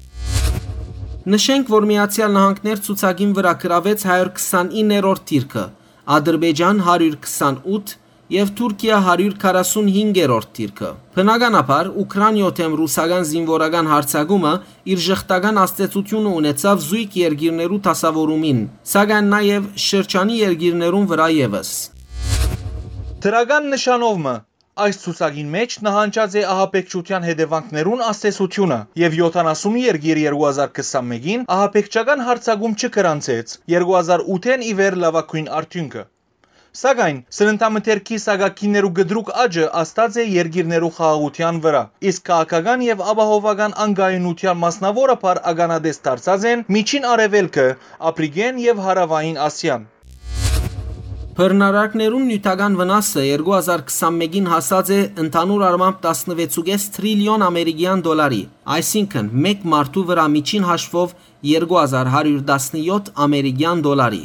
Նշենք, որ Միացեալ Նահանգներ ցուցակին վրայ գրաւեց հարիւր քսանիններորդ դիրքը, Ադրբեջան հարիւր քսանութ եւ Թուրքիա հարիւր քառասունհինգերորդ դիրքը։ Բնականաբար, Ուքրանիոյ դէմ ռուսական զինուորական յարձակումը իր ժխտական ազդեցութիւնը ունեցաւ զոյգ երկիրներու դասաւորումին, սակայն նաեւ շրջանի երկիրներուն վրայ եւս։ Դրական նշանով մը, այս ցուցակին մէջ նահանջած է ահաբեկչութեան հետեւանքներուն ազդեցութիւնը, եւ յոթանասուն երկիր երկու հազար քսանմէկին ահաբեկչական յարձակում չգրանցեց երկու հազար ութ-ին ի վեր լաւագոյն արդիւնքը։ Սակայն սննդամթերքի սակագիններու կտրուկ աճը ազդած է երկիրներու խաղաղութեան վրայ, իսկ քաղաքական եւ ապահովական անկայունութեան մասնաւորաբար ականատես դարձած են Միջին Արեւելքը, Ափրիկէն եւ Հարաւային Ասիան։ Բռնարարքներուն նիւթական վնասը երկու հազար քսանմէկին հասած է ընդհանուր առմամբ տասնվեցուկես տրիլիոն ամերիկեան դոլարի, այսինքն, մէկ մարդու վրայ միջին հաշվով երկու հազար հարիւր տասնեօթ ամերիկեան դոլարի։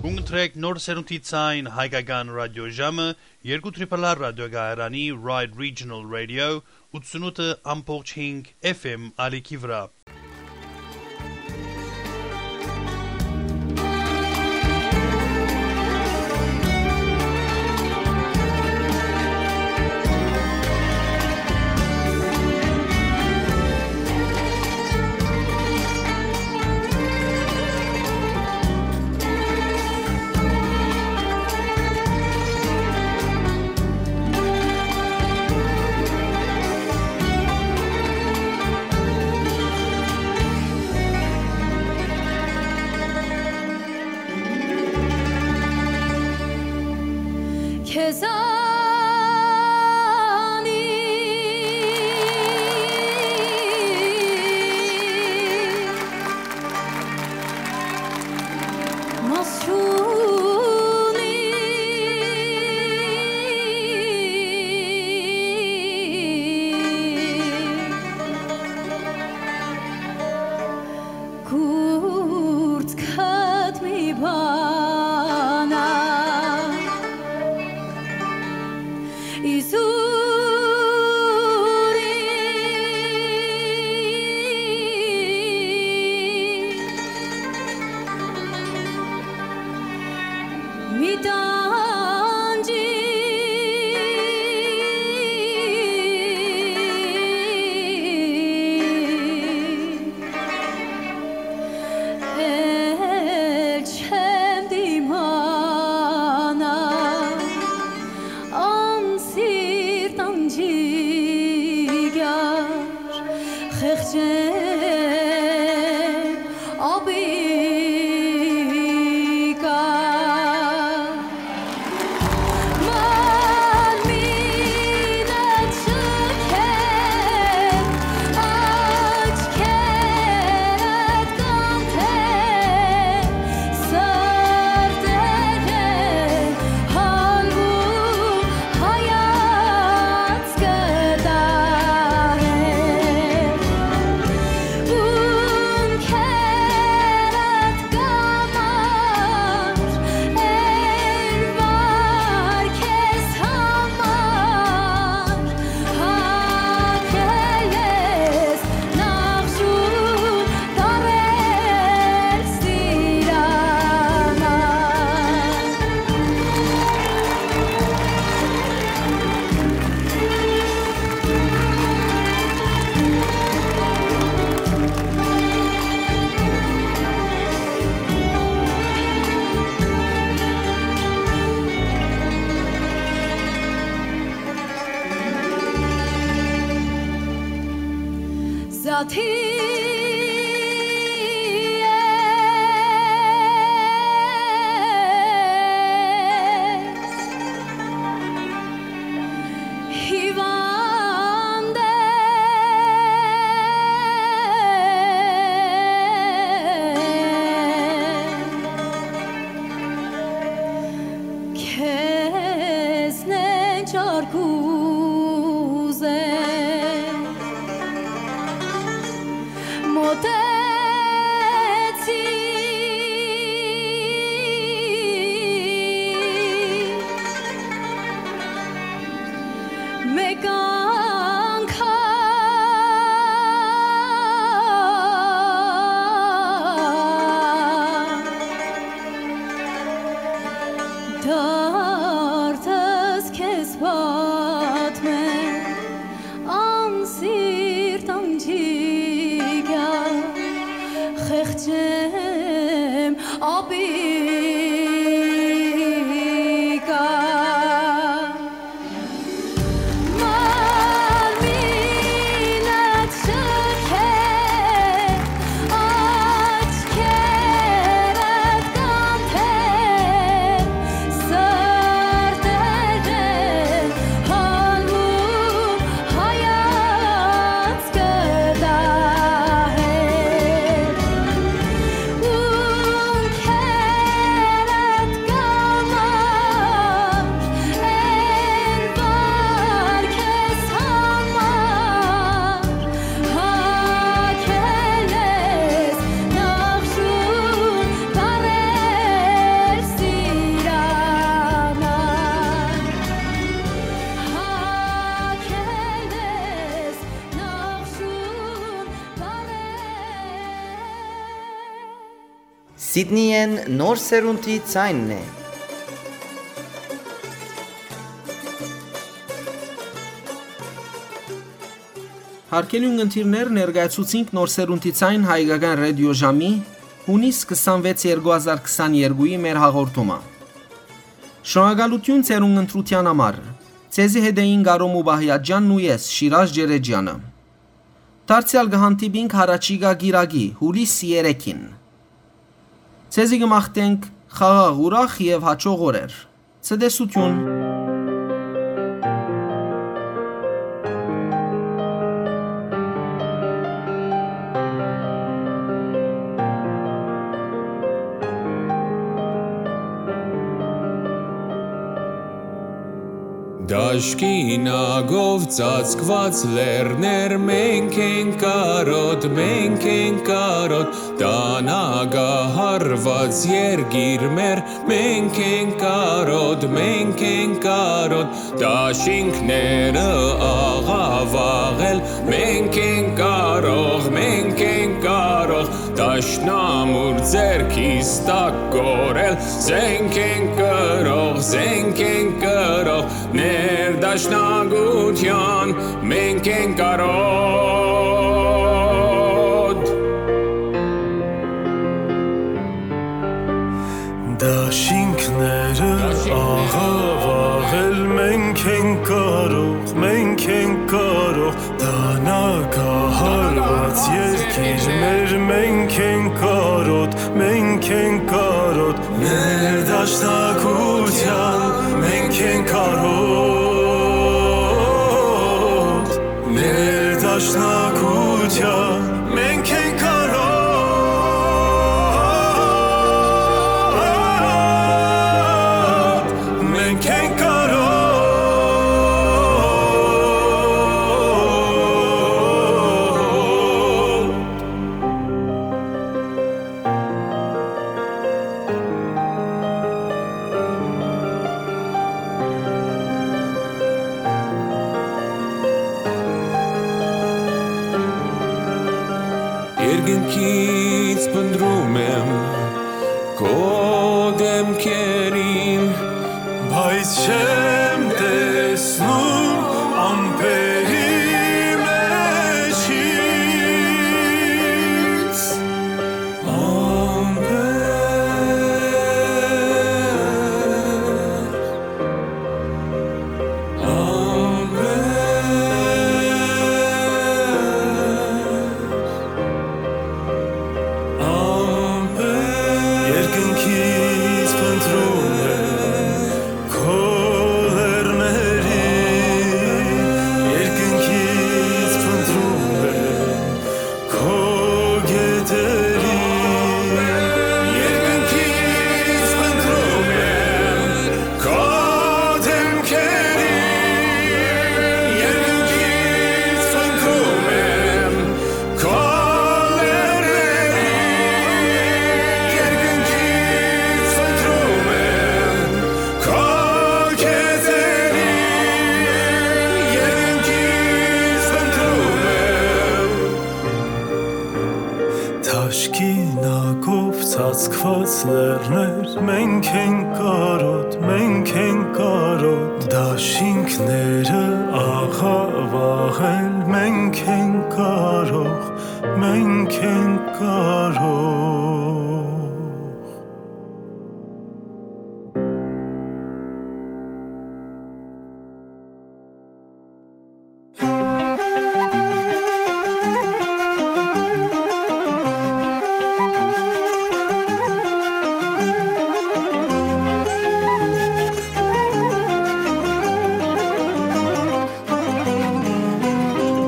Կընտրեք նոր սերունդի ցայն հայկական ռադիոժամը երկու Triple R ռադիոկայարանի Ride Regional Radio ութսունութ ամբողջ հինգ F M ալիքի վրայ։ Կուրծքդ մի բան ա, իզուր մի տանջի, էլ չեմ դիմանա անսիրտ անջիկյար խեղճեմ Ադի հիվանդ է, քեզնէ չար կ'ուզեմ, մօտեցի մէկ անգամ, դարդս քեզ պատմեմ, անսիրտ աղջիկա, խեղճեմ աբիկա։ Մարմինդ շքէ, աչքերդ կանթեն, սրտերդ հալմու հայացքը դահեր։ Ունքերդ կամար, են վար քեզ համար, հագել ես նախշուն տարեր սիրան, հագել ես նախշուն տարեր։ Սիդնիէն նոր սերունդի ձայնն է։ Հարգելի ունգընտիրներ, ներկայացուցինք նոր սերունդի ձայն հայկական ռադիոժամի հունիս քսանվեց երկու հազար քսաներկուի մեր հաղորդումը։ Շնորհակալութիւն ձեր ունգընտրութեան համար։ Ձեզի հետ էին Կարո Մուբահիաջյանն ու ես, Շիրազ Ջերեջյանը։ Դարձեալ կը հանդիպինք յառաջիկայ կիրակի, հուլիս երեքին։ Ձեզի կը մաղթենք խաղաղ, ուրախ եւ հաճող օրեր։ Ցտեսութիւն։ Դաշկինակով ծածկուած լեռներ, մենք ենք կարոտ, մենք ենք կարոտ, տանագահարված երկիր մեր, մենք ենք կարոտ, մենք ենք կարոտ, դաշինքները աղավաղել, մենք ենք կարող, մենք ենք կարող, դաշնամուր ձեռքիս տակ կորել, զենք ենք կրող, զենք ենք կրող, ներդաշնակության մենք ենք կարոտ։ Դաշինքները աղավաղել, մենք ենք կարող, մենք ենք կարող, տանագահարված երկիր մեր, մենք ենք կարոտ, մենք ենք կարոտ, ներդաշնակության մենք ենք կարոտ, ներդաշնակության մենք ենք կարոտ, մենք ենք կարոտ։ Երկնքից փնտռում եմ քո դեմքերին, բայց չեմ տեսնում ամպերի մեջ ինձ։ Ամպեր, ամպեր, Լեռներ, մենք ենք կարոտ, մենք ենք կարոտ, դաշինքները աղավաղել, մենք ենք կարող, մենք ենք կարող։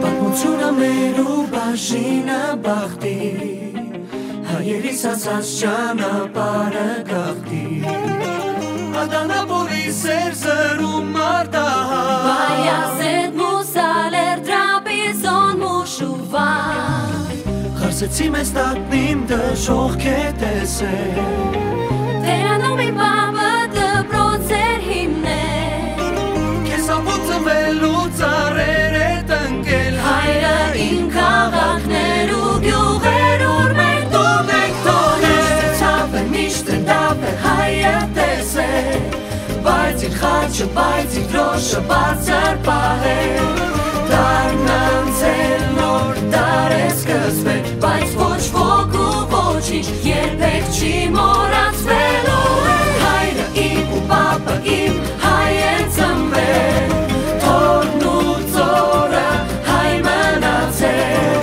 Պատմությունը մեր ու բաժինը բախտի, հայերիս ասած ճանապարհը գաղթի։ Ադանապոլի սեր զրում արտահայ, Բայազետ, Մուսալեր, Տրապիզոն, Մուշուվա։ Խարսեցի մեզ տակնիմ դժոխք է տեսել, Տերանում իմ պապը դպրոց էր հիմնել, քեզ ապուծվելու ծառեր է տնկել, հայրը իմ քաղաքներ ու գիւղեր, ուր մենք դու մենք թողել։ Միշտ ցաւ է, միշտ դապ է, հայը տեսել, բայց իր խաչը, բայց իր դրոշը բարձր պահել։ Դարն անցել, նոր դար է սկսվել, բայց ոչ ոք ու ոչինչ երբեք չի մոռացվելու։ Հայրը իմ ու պապը իմ, հայ են ծնվել, թորն ու ծորը հայ մնացել,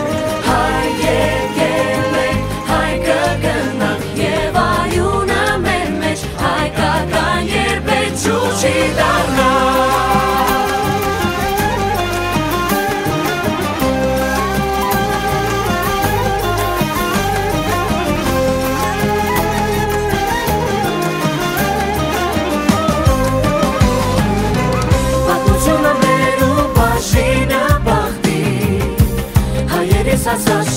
հայ եկել ենք, հայ կգնանք, եւ արիւնը մեր մեջ հայկական երբեք ջուր չի դառնա։ Պատմությունը մեր ու բաժինը բախտի, հայերիս ասած